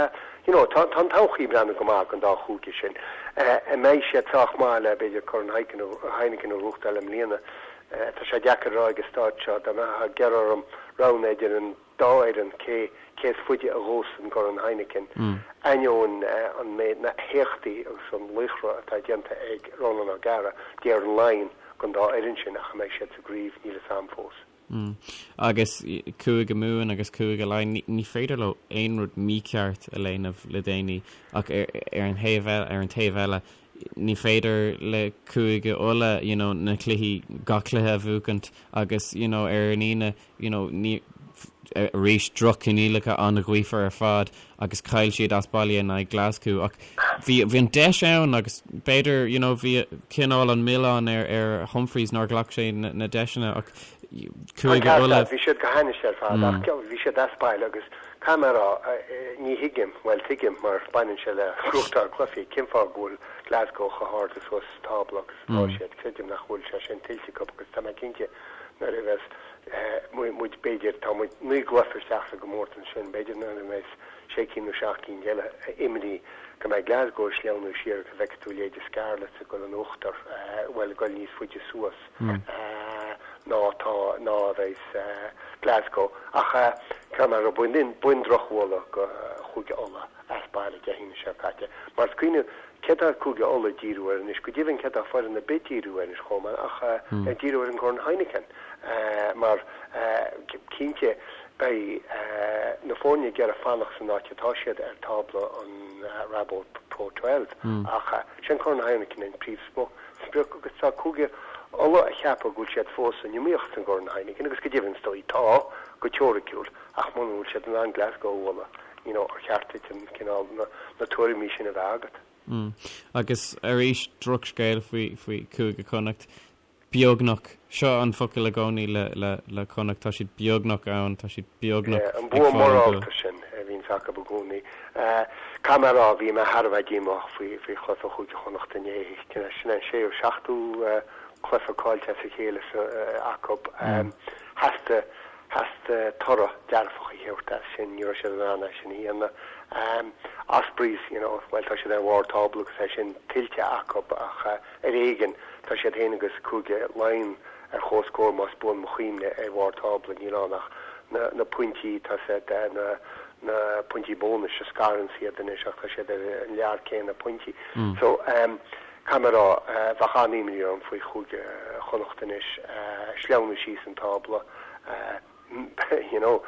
you know tá tá an todhchaí ag breathnú go maith don dá chúige sin. An mbeidh siad sách maith le b'fhéidir Corn Heineken a ghnóthachtáil i mbliana? Tá sé deacair a rá ag an staid seo. Dá mbeifeá ag iarraidh orm roghnú idir an dá fhoireann cé cé is faide a ghabhfas an gCorn Heineken, ainneoin an méid na héachtaí agus an laochra atá déanta ag Ronan O'Gara, déarfainn Laighin don dá fhoireann sin ach an mbeidh siad sa gcraobh, níl fhios a'm fós. Agus Cúige Mumhan agus Cúige Laighean, ní féidir leo aon rud mícheart a dhéanamh le déanaí ach ar an thaobh ar an taobh eile, ní féidir le Cúige Uladh you know na cluichí, gach cluiche a bhuachaint agus you know ar an Aoine you know ní. Arís, droch-choinníollacha, an-ghaofar ar fad agus chaill siad as baile in aghaidh Glasgow ach bhí bhí an deis ann agus b'fhéidir you know bhí cineál an milleán ar ar Humphreys nár ghlac sé na na deiseanna ach Cúige Uladh. Bhí siad go hainnis ar fad ach bhí siad as baile agus caithfidh mé a rá ní thuigim, bhuel tuigim mar baineann sé le gnóthachtáil cluichí, cén fáth go bhfuil Glasgow chomh hard suas sa tábla agus atá siad, creidim nach bhfuil sé sin tuillte acu agus tá mé cinnte nuair a bheas muid, b'fhéidir, tá muid 9 gcluiche isteach sa gcomórtas ansin, b'fhéidir nuair a bheas sé cinn nó seacht gcinn eile imithe go mbeidh Glasgow ag sleamhnú siar agus go bhfeicfidh tú leithéide Scarlets ag dul in uachtar, bhuel, ag dul níos faide suas ná atá, ná a bheas Glasgow. Ach caithfidh mé a rá, b'in, b'in drochbhualadh do Chúige Uladh as baile Dé hAoine seo caite. Mar is cuimhin Céard tá Cúige Uladh ag díriú air anois? Go deimhin, céard tá foireann ar bith ag díriú air anois chomh maith ach ag díriú ar an gCorn Heineken mar cinnte beidh na foirne ag iarraidh fanacht san áit atá siad ar tábla an Rabo Pro 12 ach sé an Corn Heineken an príomhsprioc agus tá Cúige Uladh ag ceapadh go bhfuil siad fós san iomaíocht san gCorn Heineken agus go deimhin is dóigh tá, go teoiriciúil, ach muna bhfuil siad in ann Glasgow a bhualadh. you know, ar cheart duit an cineál, na, na tuairimí sin a bheith agat. Mm. Agus arís, drochscéal faoi, faoi Chúige Chonnacht. Beagnach. Seo an focal i gcónaí le, le, le Connacht. Tá siad beagnach ann, tá siad beagnach Yeah, an ag bua fáil an bua. morálta sin a bhíonns acu i gcónaí. Eh, caithfidh mé a rá, bhí mé thar a bheith díomách faoi, faoi chluiche Chúige Chonnacht inné. Sin an séú, seachtú, eh, cluiche caillte as a chéile sa, eh, acu. Eh, theastaigh, Theastaigh toradh dearfach a thabhairt as sin, ní raibh siad in ann é sin a dhéanamh. Ospreys, you know, bhuel tá siad ar bharr tábla agus é sin tuillte acu ach ar éigean, tá siad féin agus Cúige Laighean ar comhscór más buan mo chuimhne ar bharr tábla, níl ann ach na na pointí, tá siad na na pointí bónais a scaranns iad anois ach tá siad ar an lear céanna pointí. So, Caithfidh mé a rá, bheadh an-imní orm faoi Chúige Chonnacht anois, sleamhnú síos an tábla. You know,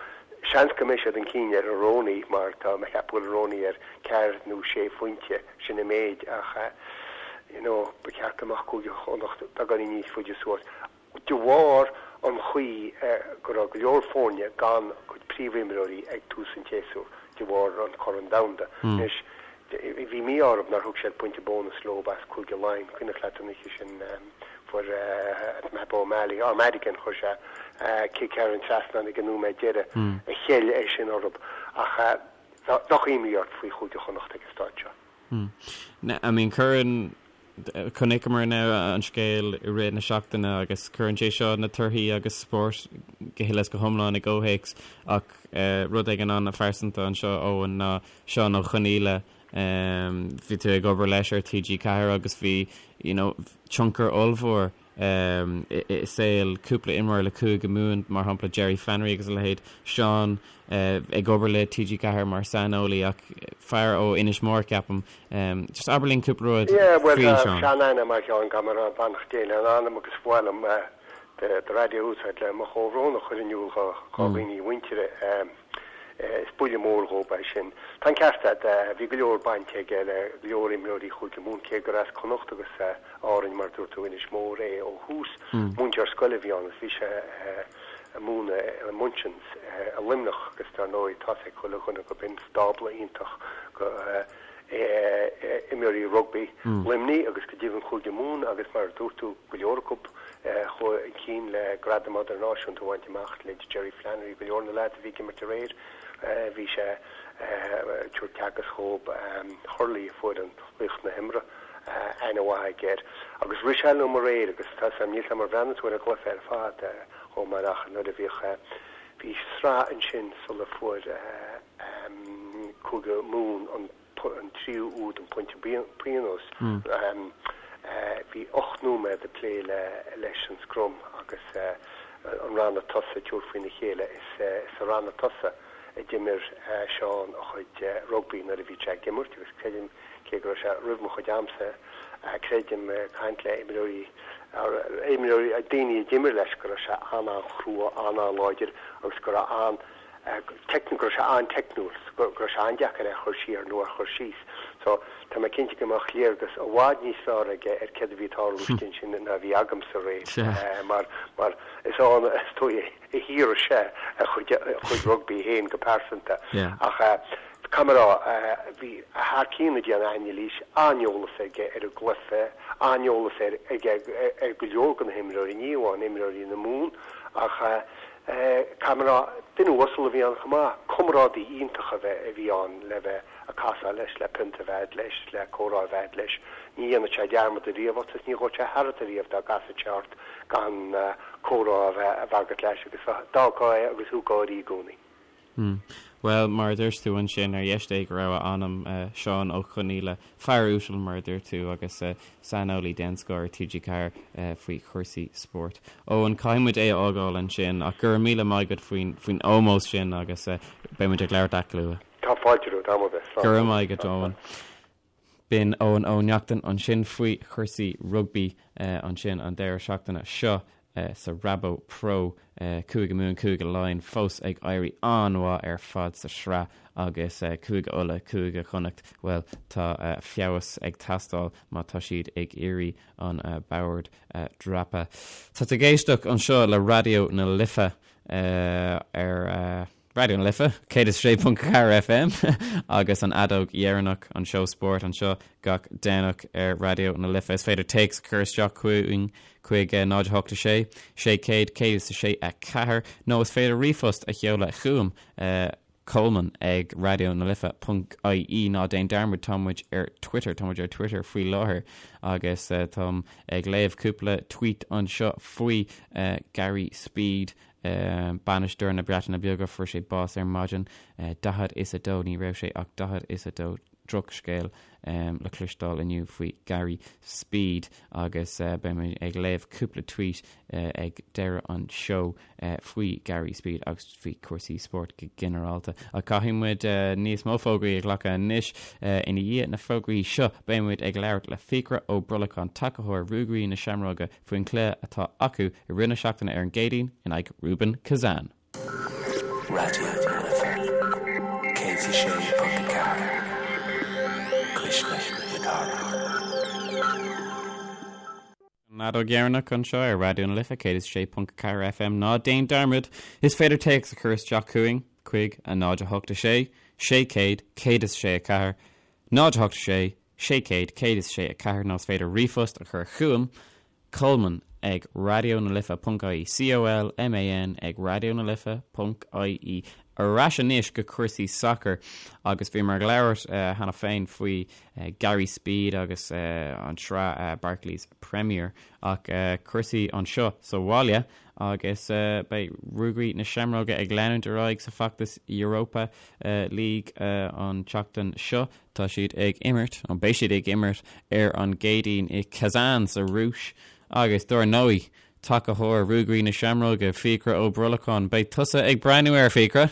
seans go mbeidh siad chun cinn ar an Rooney mar tá mé ag ceapadh go bhfuil Rooney ar ceathair nó sé phointe, sin an méid, ach you know, ba cheart go mbeadh Cúige Chonnacht beagáinín níos faide suas. de bharr an chaoi go raibh go leor foirne gan a gcuid príomhimreoirí ag tús an tséasúir de bharr an Chorn Domhanda. Anois, bhí mí-ádh orthu nár thug siad pointe bónais leo as Cúige Laighean. Cuimhneach leat an oíche sin fuair Matt O'Malley, or Madigan, chuir sé cic thar an trasnán ag an nóiméad deiridh a cheil é sin orthu. Ach bheadh imní ort faoi Chúige Chonnacht ag an staid seo. I mean, cuireann, chonaiceamar now an scéal i rith na seachtaine agus cuireann sé seo na torthaí agus spórt go huile is go hiomlán i gcomhthéacs ach rud éigin an-phearsanta anseo Eoin ná Seán Ó Conghaile, bhí tú ag obair leis ar TG4 agus bhí, you know, tionchar ollmhór i saol cúpla imreoir le Cúige Mumhan, mar shampla Jerry Flannery agus a leithéid, Seán ag obair le TG4 mar saineolaí ach fear ó Inis Mór ceapaim. Just abair linn cúpla rud Yeah, bhuel faoi tá Seán. sean-aithne agam ar Sheán, caithfidh mé a rá, beannacht Dé lena anam agus ba mhaith liom do raidió a úsáid le mo chomhbhrón a chur in iúl dho dhaoine a mhuintire. Is buille mór dhób é sin. Tá an ceart agat, bhí go leor bainte aige le go leor imreoirí Chúige Mumhan, cé gur as Connacht agus Árainn, mar a dúirt tú, Inis Mór é ó thús. Múinteoir scoile a bhí ann agus bhí sé ag múineadh i Munchin's i Luimneach agus dar ndóigh tá's ag chuile dhuine go b'in stábla iontach go imreoirí rugbaí Luimnigh agus go deimhin Chúige Mumhan agus mar a dúirt tú go leor acu chuaigh chun cinn le gradaim idirnáisiúnta a bhaint amach, leithéid Jerry Flannery, go leor na leaids a bhí ag imirt aréir bhí sé ag tabhairt teagasc dhób, Hurley a fuair an Laoch na hImeartha, aithne mhaith aige air. Agus rith sé liom aréir agus tá 's a'm, níl 's a'm ar bhreathnaigh tú ar an gcluiche ar fad chomh maith ach nuair a bhíodh, bhí sraith ansin sula fuair Cúige Mumhan an an tríú úd, an pointe pionóis. Bhí 8 nóiméad ag plé leis an scrum agus an ranna tosaigh ag tabhairt faoina chéile. Is sa ranna tosaigh a d'imir Seán a chuid rugbaí nuair a bhí sé ag imirt agus creidim, cé go raibh sé roimh mo chuid amsa, creidim, ag caint le imreoirí, imreoirí, daoine a d'imir leis go raibh sé an-an-chrua, an-an-láidir agus go raibh an, go raibh sé an-teicniúil, go raibh sé an-deacair é a chur siar nó a chur síos. So, tá mé cinnte go mbeadh léargas i bhfad níos fearr aige ar céard a bhí ag tarlú istigh ansin ná a bhí agamsa aréir mar, mar is ann is dóigh a shaothraigh sé a chuid, a chuid rugbaí féin go pearsanta. Ach caithfidh mé a rá, bhí thar cionn ag déanamh anailís, an-eolas aige ar an gcluiche, an-eolas air, aige ar go leor de na himreoirí, ní amháin imreoirí na Mumhan ach caithfidh mé a rá, duine uasal a bhí ann chomh maith, comrádaí iontach a bheith, a bhí ann le bheith ag casadh leis, le pionta a bheith a'd leis, le comhrá a bheith a'd leis. Ní dhéanfadh sé dearmad ariamh ort is ní ghabhfadh sé tharat ariamh dá gcasfadh sé ort gan comhrá a bheith agat leis agus d'fhágfá é agus thú ag gáirí i gcónaí. Hmm. Bhuel, mar a dúirt tú ansin, ar dheis Dé go raibh a anam, Seán Ó Conghaile, fear uasal mar a dúirt tú agus saineolaí den scoth ar TG4 faoi chúrsaí spóirt. Eoin, caithfidh muid é a fhágáil ansin ach go raibh míle maith agat faoin faoin ómós sin agus beidh muid ag labhairt leat go luath. Tá fáilte romhat, am ar bith. Slán. Go raibh maith agat, Eoin. B'in Eoin Ó Neachtain ansin faoi chúrsaí rugbaí ansin an deireadh seachtaine seo sa Rabo Pro. Cúige Mumhan, Cúige Laighean fós ag éirí an-mhaith ar fad sa sraith agus Cúige Uladh, Cúige Chonnacht, bhuel, tá feabhas ag teastáil má tá siad ag iarraidh an bord a dhreapadh. Tá tú ag éisteacht anseo le Raidió na Life ar. Raidió na Life, 106.4 FM agus an fheadóg dheireanach, an seó spóirt anseo gach Domhnach ar Raidió na Life. Is féidir téacs a chur isteach chugainn chuig 0 8 6 600 106 4 nó is féidir ríomhphost a sheoladh chugam, Colman ag raidionalife.ie. Ná déan dearmad, tá muid ar Twitter, tá muid ar Twitter faoi láthair agus táim ag léamh cúpla tweet anseo faoi Gary Speed, Bainisteoir na Breataine Bige, fuair sé bás ar maidin, 42, ní raibh sé ach 42, drochscéal le cloisteáil inniu faoi Gary Speed agus beidh mé ag léamh cúpla tweet ag deireadh an seó faoi Gary Speed agus faoi chúrsaí spóirt go ginearálta. Ach caithfidh muid níos mó fógraí a ghlacadh anois. Ina dhiaidh na fógraí seo beidh muid ag labhairt le Fiachra Ó Brolacháin, tacaitheoir Ruagairí na Seamróige, faoin chluiche atá acu i rith na seachtaine ar an gCéadaoin in aghaidh Rubin Kazan. Raidió na Life 106.4, Cuisle na Cathrach. An fheadóg dheireanach anseo ar Raidió na Life 106.4 FM. Ná déan dearmad, is féidir téacs a chur isteach chugainn chuig 0 8 6 600 106 4, 0 8 6 600 106 4 nó is féidir ríomhphost a chur chugam, Colman ag raidionalife ponc ie, C-O-L-M-A-N ag raidionalife ponc ie. Ar ais anois go cúrsaí sacair agus bhíomar ag labhairt cheana féin faoi Gary Speed agus an tsraith Barclays Premier ach cúrsaí anseo sa bhaile agus beidh Ruagairí na Seamróige ag leanúint ar aghaidh sa bhfeachtas Europa League an tseachtain seo. Tá siad ag imirt, nó beidh siad ag imirt, ar an gCéadaoin i Kazan sa Rúis agus, dár ndóigh, tacaitheoir Ruagairí na Seamróige, Fiachra Ó Brolacháin, beidh tusa ag breathnú air, Fiachra?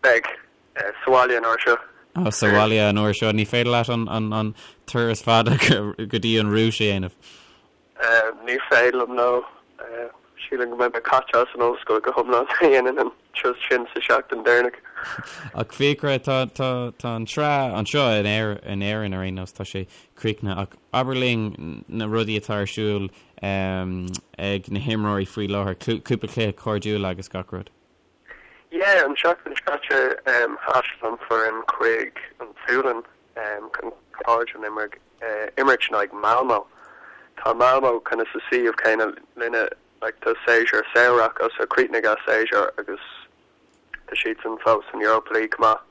Beidh. Sa bhaile an uair seo. Ó, sa bhaile an uair seo. Ní féidir leat an turas fada go dtí an Rúis a dhéanamh. Ní féidir liom, no. Sílim go mbeidh mé caite as an ollscoil go hiomlán má dhéanaim an turas sin sa seachtain deireanach. Ach Fiachra, tá, tá, tá an tsraith anseo in Éir, in Éirinn ar aon nós, tá sé críochnaithe ach abair linn na rudaí atá ar siúl ag na himreoirí faoi láthair, cúpla cluiche cairdiúil agus gach rud. Yeah, an seachtain seo caite thaistil an foireann chuig an tSualainn chun cairdiúil a imirt in aghaidh Malmo. Tá Malmo kind of sa suíomh céanna linne, like tá séasúr samhraidh acu so chríochnaigh a séasúr agus tá siadsan fós san Europa League chomh maith.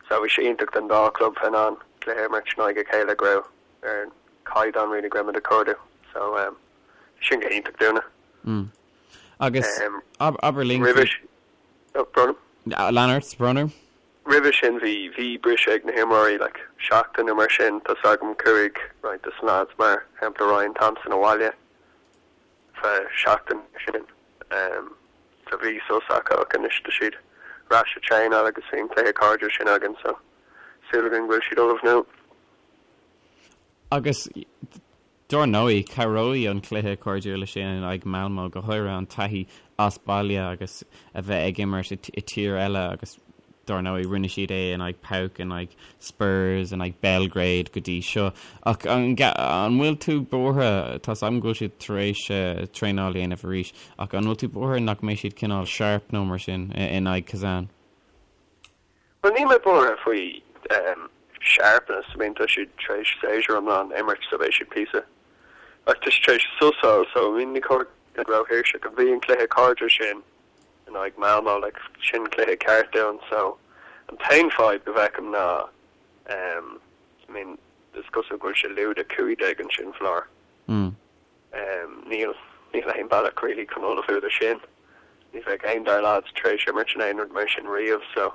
So bhí sé iontach don dá club bheith in ann cluiche a imirt in aghaidh a chéile go raibh ar an caighdeán really go raibh muid ag cuardú. So bhí sin go hiontach dúinne. Mm. Agus abair linn faoi. Oh, brón. Lean ort, brón orm. Roimhe sin bhí, bhí briseadh ag na himreoirí, like, seachtain nó mar sin, tá's agam chuaigh roinnt de na lads, mar shampla Ryan Thompson abhaile feadh seachtain mar sin. So bhí sos acu ach anois tá siad ar ais ag traenáil agus bhí an cluiche cairdiúil sin againn so súil againn go bhfuil siad ullamh now. Agus Dár ndóigh, cabhróidh an cluiche cairdiúil sin in aghaidh Malmo, go háirithe an taithí as baile agus a bheith ag imirt i tír eile agus. Dár ndóigh, rinne siad é in aghaidh PAOK, in aghaidh Spurs, in aghaidh Belgrade go dtí seo. Ach an bhfuil tú buartha, tá's agam go bhfuil siad tar éis traenáil a dhéanamh arís, ach an bhfuil tú buartha nach mbeidh siad cineál sharp nó mar sin in aghaidh Kazan? Bhuel, níl mé buartha faoi sharpness, I mean tá siad tar éis séasúr iomlán a imirt so beidh siad píosa, ach tá siad tar éis sos a fháil so I mean ní cóir go mbeadh róthuirseach. Bhí an cluiche cairde sin in aghaidh Malmo, like sin cluiche ceart dúinn so an t-aon fadhb go bhfeicim ná um I mean is cosúil go bhfuil sé lúide 15 ansin faoi láthair. Mm. Um níl níl aon bealach really chun ullmhú do sin. Ní bheidh aon dár lads tar éis imirt in aon rud mar sin riamh so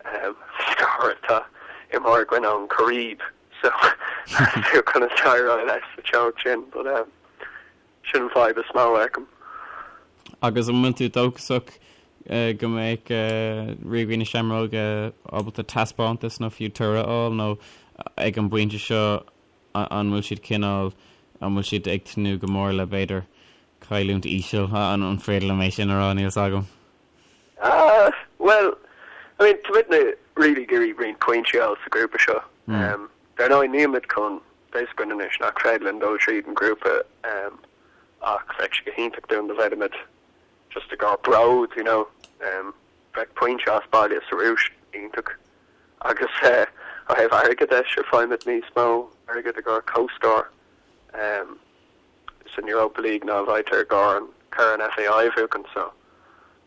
um go háirithe tá imreoir againn ón Chairib so tú conas éireoidh leis sa teocht sin but um Sin an fadhb is mó a fheicim. Agus an bhfuil tú dóchasach go mbeidh Ríogaí na Seamróige ábalta taispeántas nó fiú toradh a fháil nó ag an bpointe seo an bhfuil siad cineál, an bhfuil siad ag tnúth go mór le b'fhéidir cailliúint íseal, an féidir liom é sin a rá, níl 's agam. Ah, bhuel, I mean, táimidne really ag iarraidh roinnt pointí a fháil sa ghrúpa seo. Dar ndóigh, nílimid chun, tá a fhios againn anois nach féidir linn dul tríd an ghrúpa ach bheadh sé go hiontach dúinn dá bhféadfaimid just i gcomhair bród, you know, bheadh pointe as baile sa Rúis iontach agus ó thaobh airgid de, sure, faighimid níos mó airgid i gcomhair comhscór. san Europa League ná a bhfaightear i gcomhair an Corn FAI a bhuachan so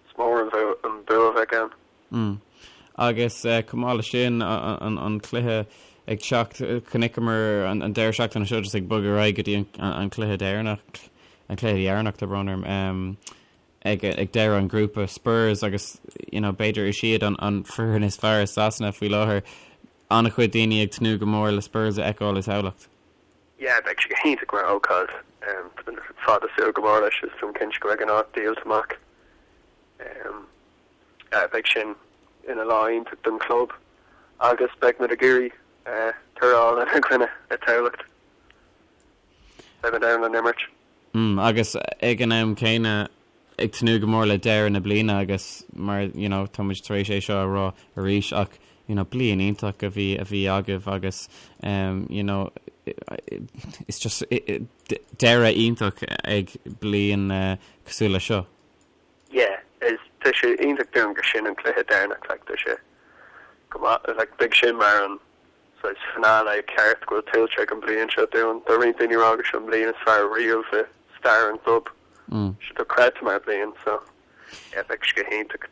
is mór an bua a bheadh ann. Mm. Agus chomh maith leis sin, an cluiche ag teacht, chonaiceamar an deireadh seachtaine seo just ag bogadh ar aghaidh go dtí an cluiche deireanach, an cluiche dheireanach, tá brón orm, ag deireadh an ghrúpa, Spurs agus you know b'fhéidir is iad an foireann is fearr i Sasana faoi láthair. An-chuid daoine ag tnúth go mór le Spurs a fheiceáil i Tamhlacht. Yeah, beidh sé go hiontach mar ócáid. Tá mé fada ag súil go mór leis is táim cinnte go mbeidh an áit díolta amach. Beidh sin ina lá iontach don chlub agus beidh muid ag iarraidh toradh a fháil ina gcoinne i Tamhlacht. Beidh muid ann don imirt. Mm, agus ag an am céanna ag tnúth go mór le deireadh na bliana agus mar you know tá muid tar éis é seo a rá arís ach you know bliain iontach a bhí a bhí agaibh agus um you know it's just deireadh iontach ag bliain uh, cosúil le seo. Yeah, is tá sé iontach dúinn gur sin an cluiche deireanach like tá sé go maith like beidh sin mar an saghas finale ceart go bhfuil tuillte ag an bliain seo dúinn. Tá roinnt daoine ag rá gur seo an bliain is fearr riamh i stair an chlub. Tá sé dochreidte mar bliain so yeah beidh sé go hiontach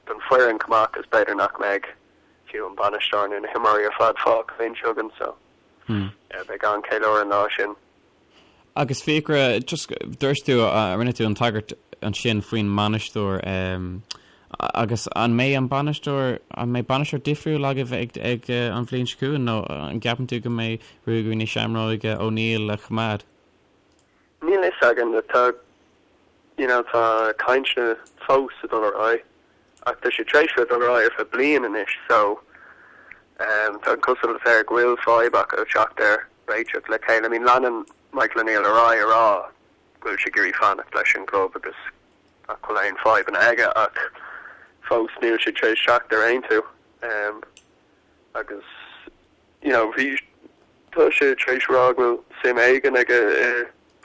don foireann chomh maith agus b'fhéidir nach mbeidh fiú an bainisteoir nó na himreoirí ar fad fágtha linn seo againn so yeah beidh an-cheiliúradh an lá sin. Agus Fiachra, just, dúirt tú, rinne tú an tagairt ansin faoin mbainisteoir, agus an mbeidh an bainisteoir, an mbeidh bainisteoir difriúil agaibh ag, ag an bhliain seo chugainn nó an gceapann tú go mbeidh Ruagairí na Seamróige O'Neill a choimeád? Níl a fhios againn, tá, you know, tá cainteanna fós ag dul ar aghaidh. Ach tá sé tar éis bheith ag dul ar aghaidh ar feadh bliain anois so tá an chosúlacht air go bhfuil fadhb acu teacht ar réiteach le chéile. I mean leanann Michael O'Neill ar aghaidh a rá go bhfuil sé ag iarraidh fanacht leis an gclub agus nach bhfuil aon fadhbanna aige ach fós níl sé tar éis teacht ar aontú agus you know bhí tá sé tar éis rá go bhfuil suim éigin aige i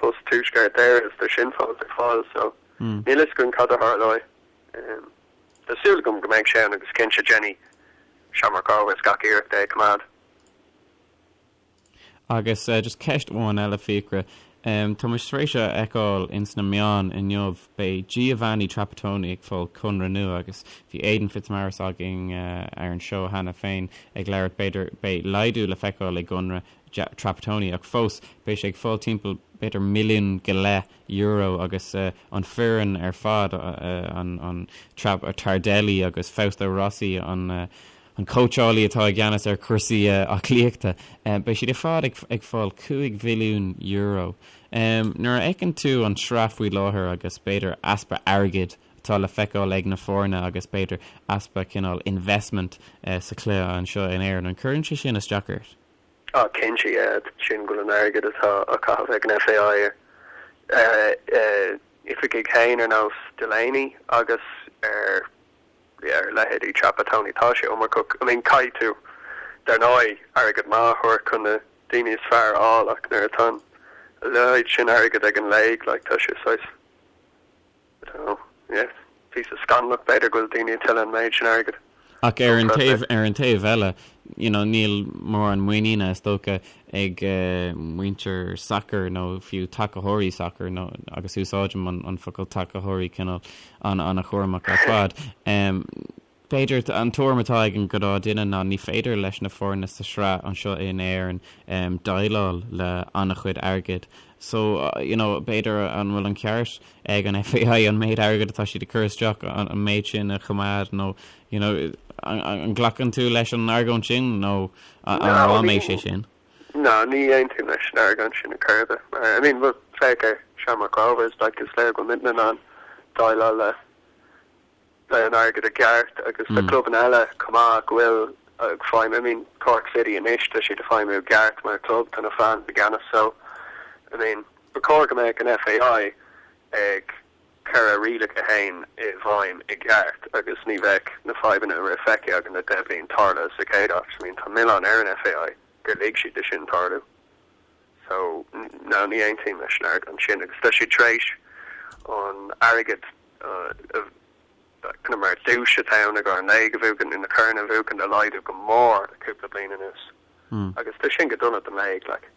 bpost Tuaisceart Éireann is tá sin fós ar fáil so níl a fhios againn cad a tharlóidh. Tá súil agam go mbeidh sé ann agus cinnte déanfaidh Shamrock Rovers gach iarracht é a choimeád. Agus just ceist amháin eile, Fiachra. Tá muid tar éis a fheiceáil ins na meáin inniu, beidh Giovanni Trapattoni ag fáil conradh nua agus bhí Aidan Fitzmaurice againn ar an seó cheana féin ag labhairt, b'fhéidir beidh laghdú le feiceáil i gconradh Trapattoni ach fós beidh sé ag fáil timpeall b'fhéidir milliún go leith euro agus an foireann ar fad, an Tardelli agus Fausto Rossi, an cóitseálaí atá i gceannas ar chúrsaí aclaíochta, beidh siad ar fad ag fáil €5 mhilliún. Nuair a fheiceann tú an tsraith faoi láthair agus b'fhéidir easpa airgid atá le feiceáil ag na foirne agus b'fhéidir easpa cineál investment sa chluiche anseo in Éirinn, an gcuireann sé sin isteach ort? Ah cinnte, yeah, sin go bhfuil an airgead atá á chaitheamh ag an FAI ar oifigigh féin ar nós Delaney agus ar yeah, ar leithéidí Trapattoni, tá sé iomarcach. I mean, caithfidh tú, dar ndóigh, airgead maith a thabhairt chun na daoine is fearr a fháil ach nuair atá an leithéid sin airgid ag an léig, like, tá sé saghas, I don't know, yeah, píosa scannalach b'fhéidir go bhfuil daoine ag tuilleadh an méid sin airgid. Ach ar an taobh, ar an taobh eile, you know, níl mórán muiníne, is dócha, ag muintir sacair nó fiú tacaitheoirí sacair, nó, agus úsáidim an, an focal tacaitheoirí cineál an-chúramach ar fad. B'fhéidir an tuairim atá ag an ghnáth duine ná ní féidir leis na foirne sa sraith anseo in Éirinn déileáil le an-chuid airgid. So, you know, b'fhéidir an bhfuil an ceart ag an FAI an méid airgid atá siad ag cur isteach, an méid sin a choimeád nó, you know, an nglacann tú leis an argóint sin nó an rám é sé sin? No, ní aontaím leis an argóint sin ar chor ar bith. Mar, I mean, well, féach ar Shamrock Rovers, like, is léir go bhfuil muidne in ann déileáil le le an airgead i gceart agus tá clubanna eile chomh maith go bhfuil ag feidhmiú, I mean, Cork City anois, tá siad ag feidhmiú i gceart mar chlub, tá na fans i gceannas so, I mean, ba chóir go mbeadh an FAI ag cur a rialacha féin i bhfeidhm i gceart agus ní bheadh na fadhbanna a raibh feicthe againn le 10 bliain tarlaithe sa chéad áit. I mean, tá milleán ar an FAI gur lig siad do sin tarlú. So, no, ní aontaím leis an argóint sin agus tá siad tar éis an airgead kind of mar duais atá ann i gcomhair an léig a bhuachan nó na corn a bhuachan a laghdú go mór le cúpla bliain anuas. Agus tá sin go dona don léig, like.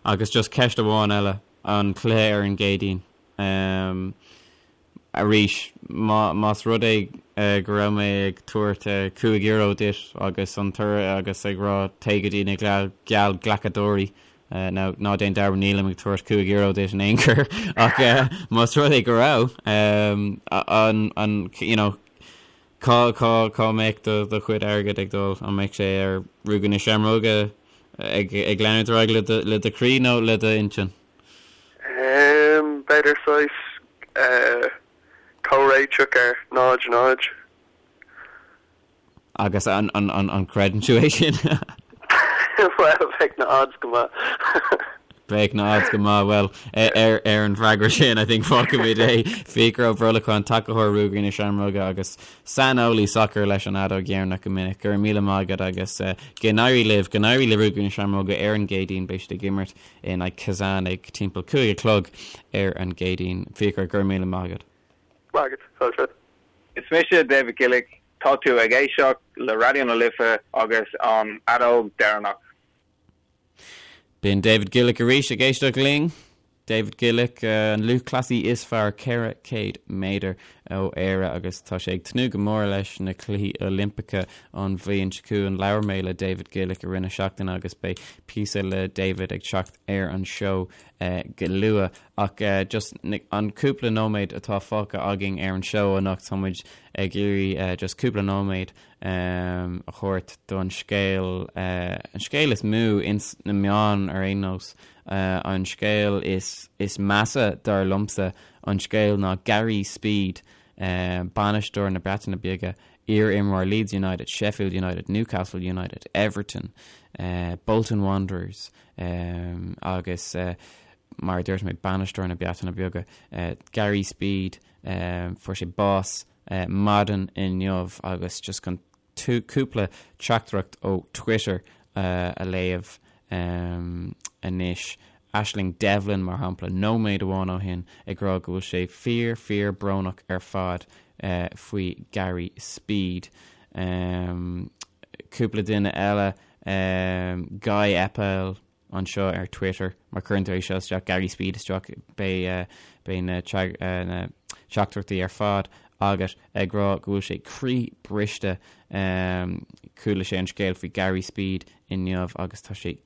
Agus just ceist amháin eile, an cluiche ar an gCéadaoin. Arís, más rud é go raibh mé ag tabhairt €5 duit agus an toradh agus ag rá téigh go dtí na geallghlacadóirí, now ná déan dearmad nílim ag tabhairt €5 duit in aon chor ach más rud é go raibh, an, you know, cá, cá, cá mbeadh do, do chuid airgid ag dul? An mbeadh sé ar Ruagairí na Seamróige ag, ag leanúint ar aghaidh le do, le do chroí nó le d'intinn? B'fhéidir saghas comhréiteach ar 0, 0. Agus an gcreideann tú é sin? Bhuel, bheadh na odds go maith. Bheadh na odds go maith. Bhuel, ar an bhfreagra sin, I think fágfaimid é. Fiachra Ó Brolacháin, tacaitheoir Ruagairí na Seamróige agus saineolaí sacair leis an Fheadóg Dheireanach go minic. Go raibh míle maith agat agus go n-éirí libh, go n-éirí le Ruagairí na Seamróige ar an gCéadaoin. Beidh siad ag imirt in aghaidh Kazan ag timpeall 5 a chlog ar an gCéadaoin. Fiachra, go raibh míle maith agat. Maith agat. Fáilte. Is mise David Gillick, tá tú ag éisteacht le Raidió na Life agus an Fheadóg Dheireanach. B'in David Gillick arís ag éisteacht linn. David Gillick, an lúthchleasaí is fearr 400 méadar ó Éire agus tá sé ag tnúth go mór leis na Cluichí Oilimpeacha an bhliain seo chugainn. Labhair mé le David Gillick i rith na seachtaine agus beidh píosa le David ag teacht ar an seó go luath. Ach just an cúpla nóiméad atá fágtha againn ar an seó anocht, tá muid ag iarraidh just cúpla nóiméad a thabhairt don scéal, an scéal is mó ins na meáin ar aon nós, an scéal is is measa dar liomsa, an scéal ná Gary Speed, bainisteoir na Breataine Bige, iar-imreoir Leeds United, Sheffield United, Newcastle United, Everton, Bolton Wanderers agus mar a dúirt mé bainisteoir na Breataine Bige, Gary Speed, fuair sé bás maidin inniu agus just chun cúpla teachtaireacht ó Twitter a léamh anois. Aisling Devlin, mar shampla, nóiméad amháin ó shin ag rá go bhfuil sé fíor, fíor brónach ar fad faoi Gary Speed. Cúpla duine eile, Guy Eppel, anseo ar Twitter, má chuireann tú é seo isteach, Gary Speed isteach, beidh beidh na na teachtaireachtaí ar fad agat ag rá go bhfuil sé croí briste. Chuala sé an scéal faoi Gary Speed inniu agus tá sé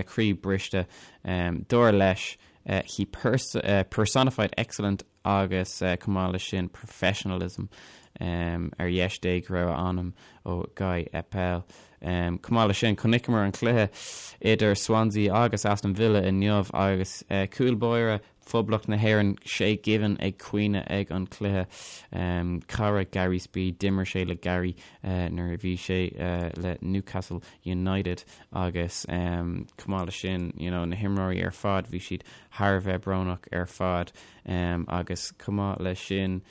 croí briste. Dar leis, he personified excellent agus chomh maith leis sin professionalism ar dheis Dé go raibh a anam ó Guy Eppel. Chomh maith leis sin, chonaiceamar an cluiche idir Swansea agus Aston Villa inniu agus cúl báire Phoblacht na hÉireann, Shay Given ag caoineadh ag an cluiche. Cara Gary Speed, d'imir sé le Gary nuair a bhí sé le Newcastle United agus chomh maith leis sin, you know, na himreoirí ar fad, bhí siad thar a bheith brónach ar fad agus chomh maith leis sin.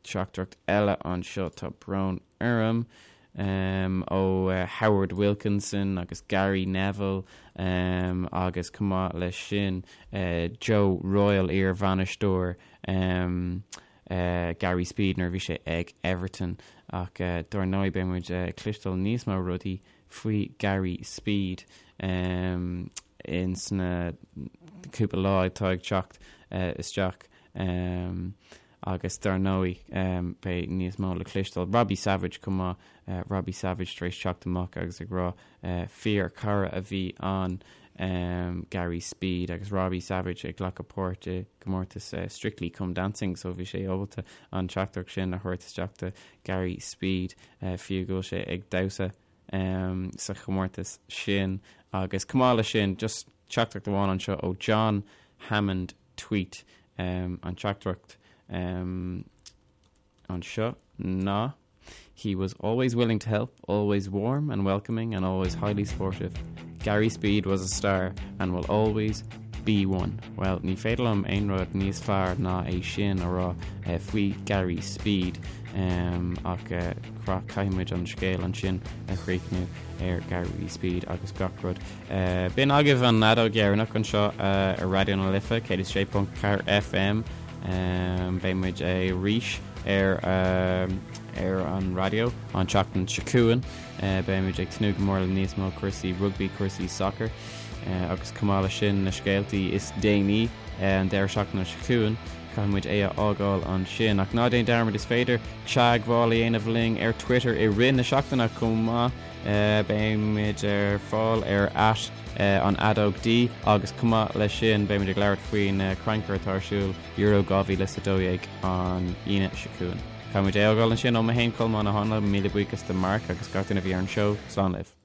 teachtaireacht eile anseo, tá brón orm, ó Howard Wilkinson agus Gary Neville agus chomh maith leis sin Joe Royle, iar-bhainisteoir Gary Speed nuair a bhí sé ag Everton. Ach dár ndóigh beidh muid ag cloisteáil níos mó rudaí faoi Gary Speed ins na cúpla lá atá ag teacht isteach. Agus dar ndóigh, beidh níos mó le cloisteáil. Robbie Savage chomh maith, Robbie Savage tar éis teacht amach agus ag rá fíor chara a bhí ann Gary Speed agus Robbie Savage ag glacadh páirt i gcomórtas Strictly Come Dancing so bhí sé ábalta an teachtaireacht sin a thabhairt isteach do Gary Speed fiú go bhfuil sé ag damhsa sa chomórtas sin. Agus chomh maith leis sin, just teachtaireacht amháin anseo ó John Hammond Tweet an teachtaireacht anseo ná He was always willing to help, always warm and welcoming and always highly sportive. Gary Speed was a star and will always be one. Well, ní féidir liom aon rud níos fearr ná é sin a rá faoi Gary Speed ach caithfidh muid an scéal ansin a chríochnú ar Gary Speed agus gach rud. B'in agaibh an fheadóg dheireanach anseo ar Raidió na Life 106.4 FM. Beidh muid arís ar ar an raidió an tseachtain seo chugainn. Beidh muid ag tnúth go mór le níos mó cúrsaí rugbaí, cúrsaí sacair agus chomh maith leis sin na scéaltaí is déanaí an deireadh seachtaine seo chugainn. Caithfidh muid é a fhágáil ansin. Ach ná déan dearmad is féidir teagmháil a dhéanamh linn ar Twitter i rith na seachtaine chomh maith. Beimid ar fáil ar at an fheadóg D agus chomh maith leis sin beimid ag labhairt faoin crannchur atá ar siúl Euro 2012 an Aoine seo chugainn. Caithfidh muid é a fhágáil ansin ó mé féin Colmán Ó hÁinle, míle buíochas do Mark agus gach duine a bhí ar an seó. Slán libh.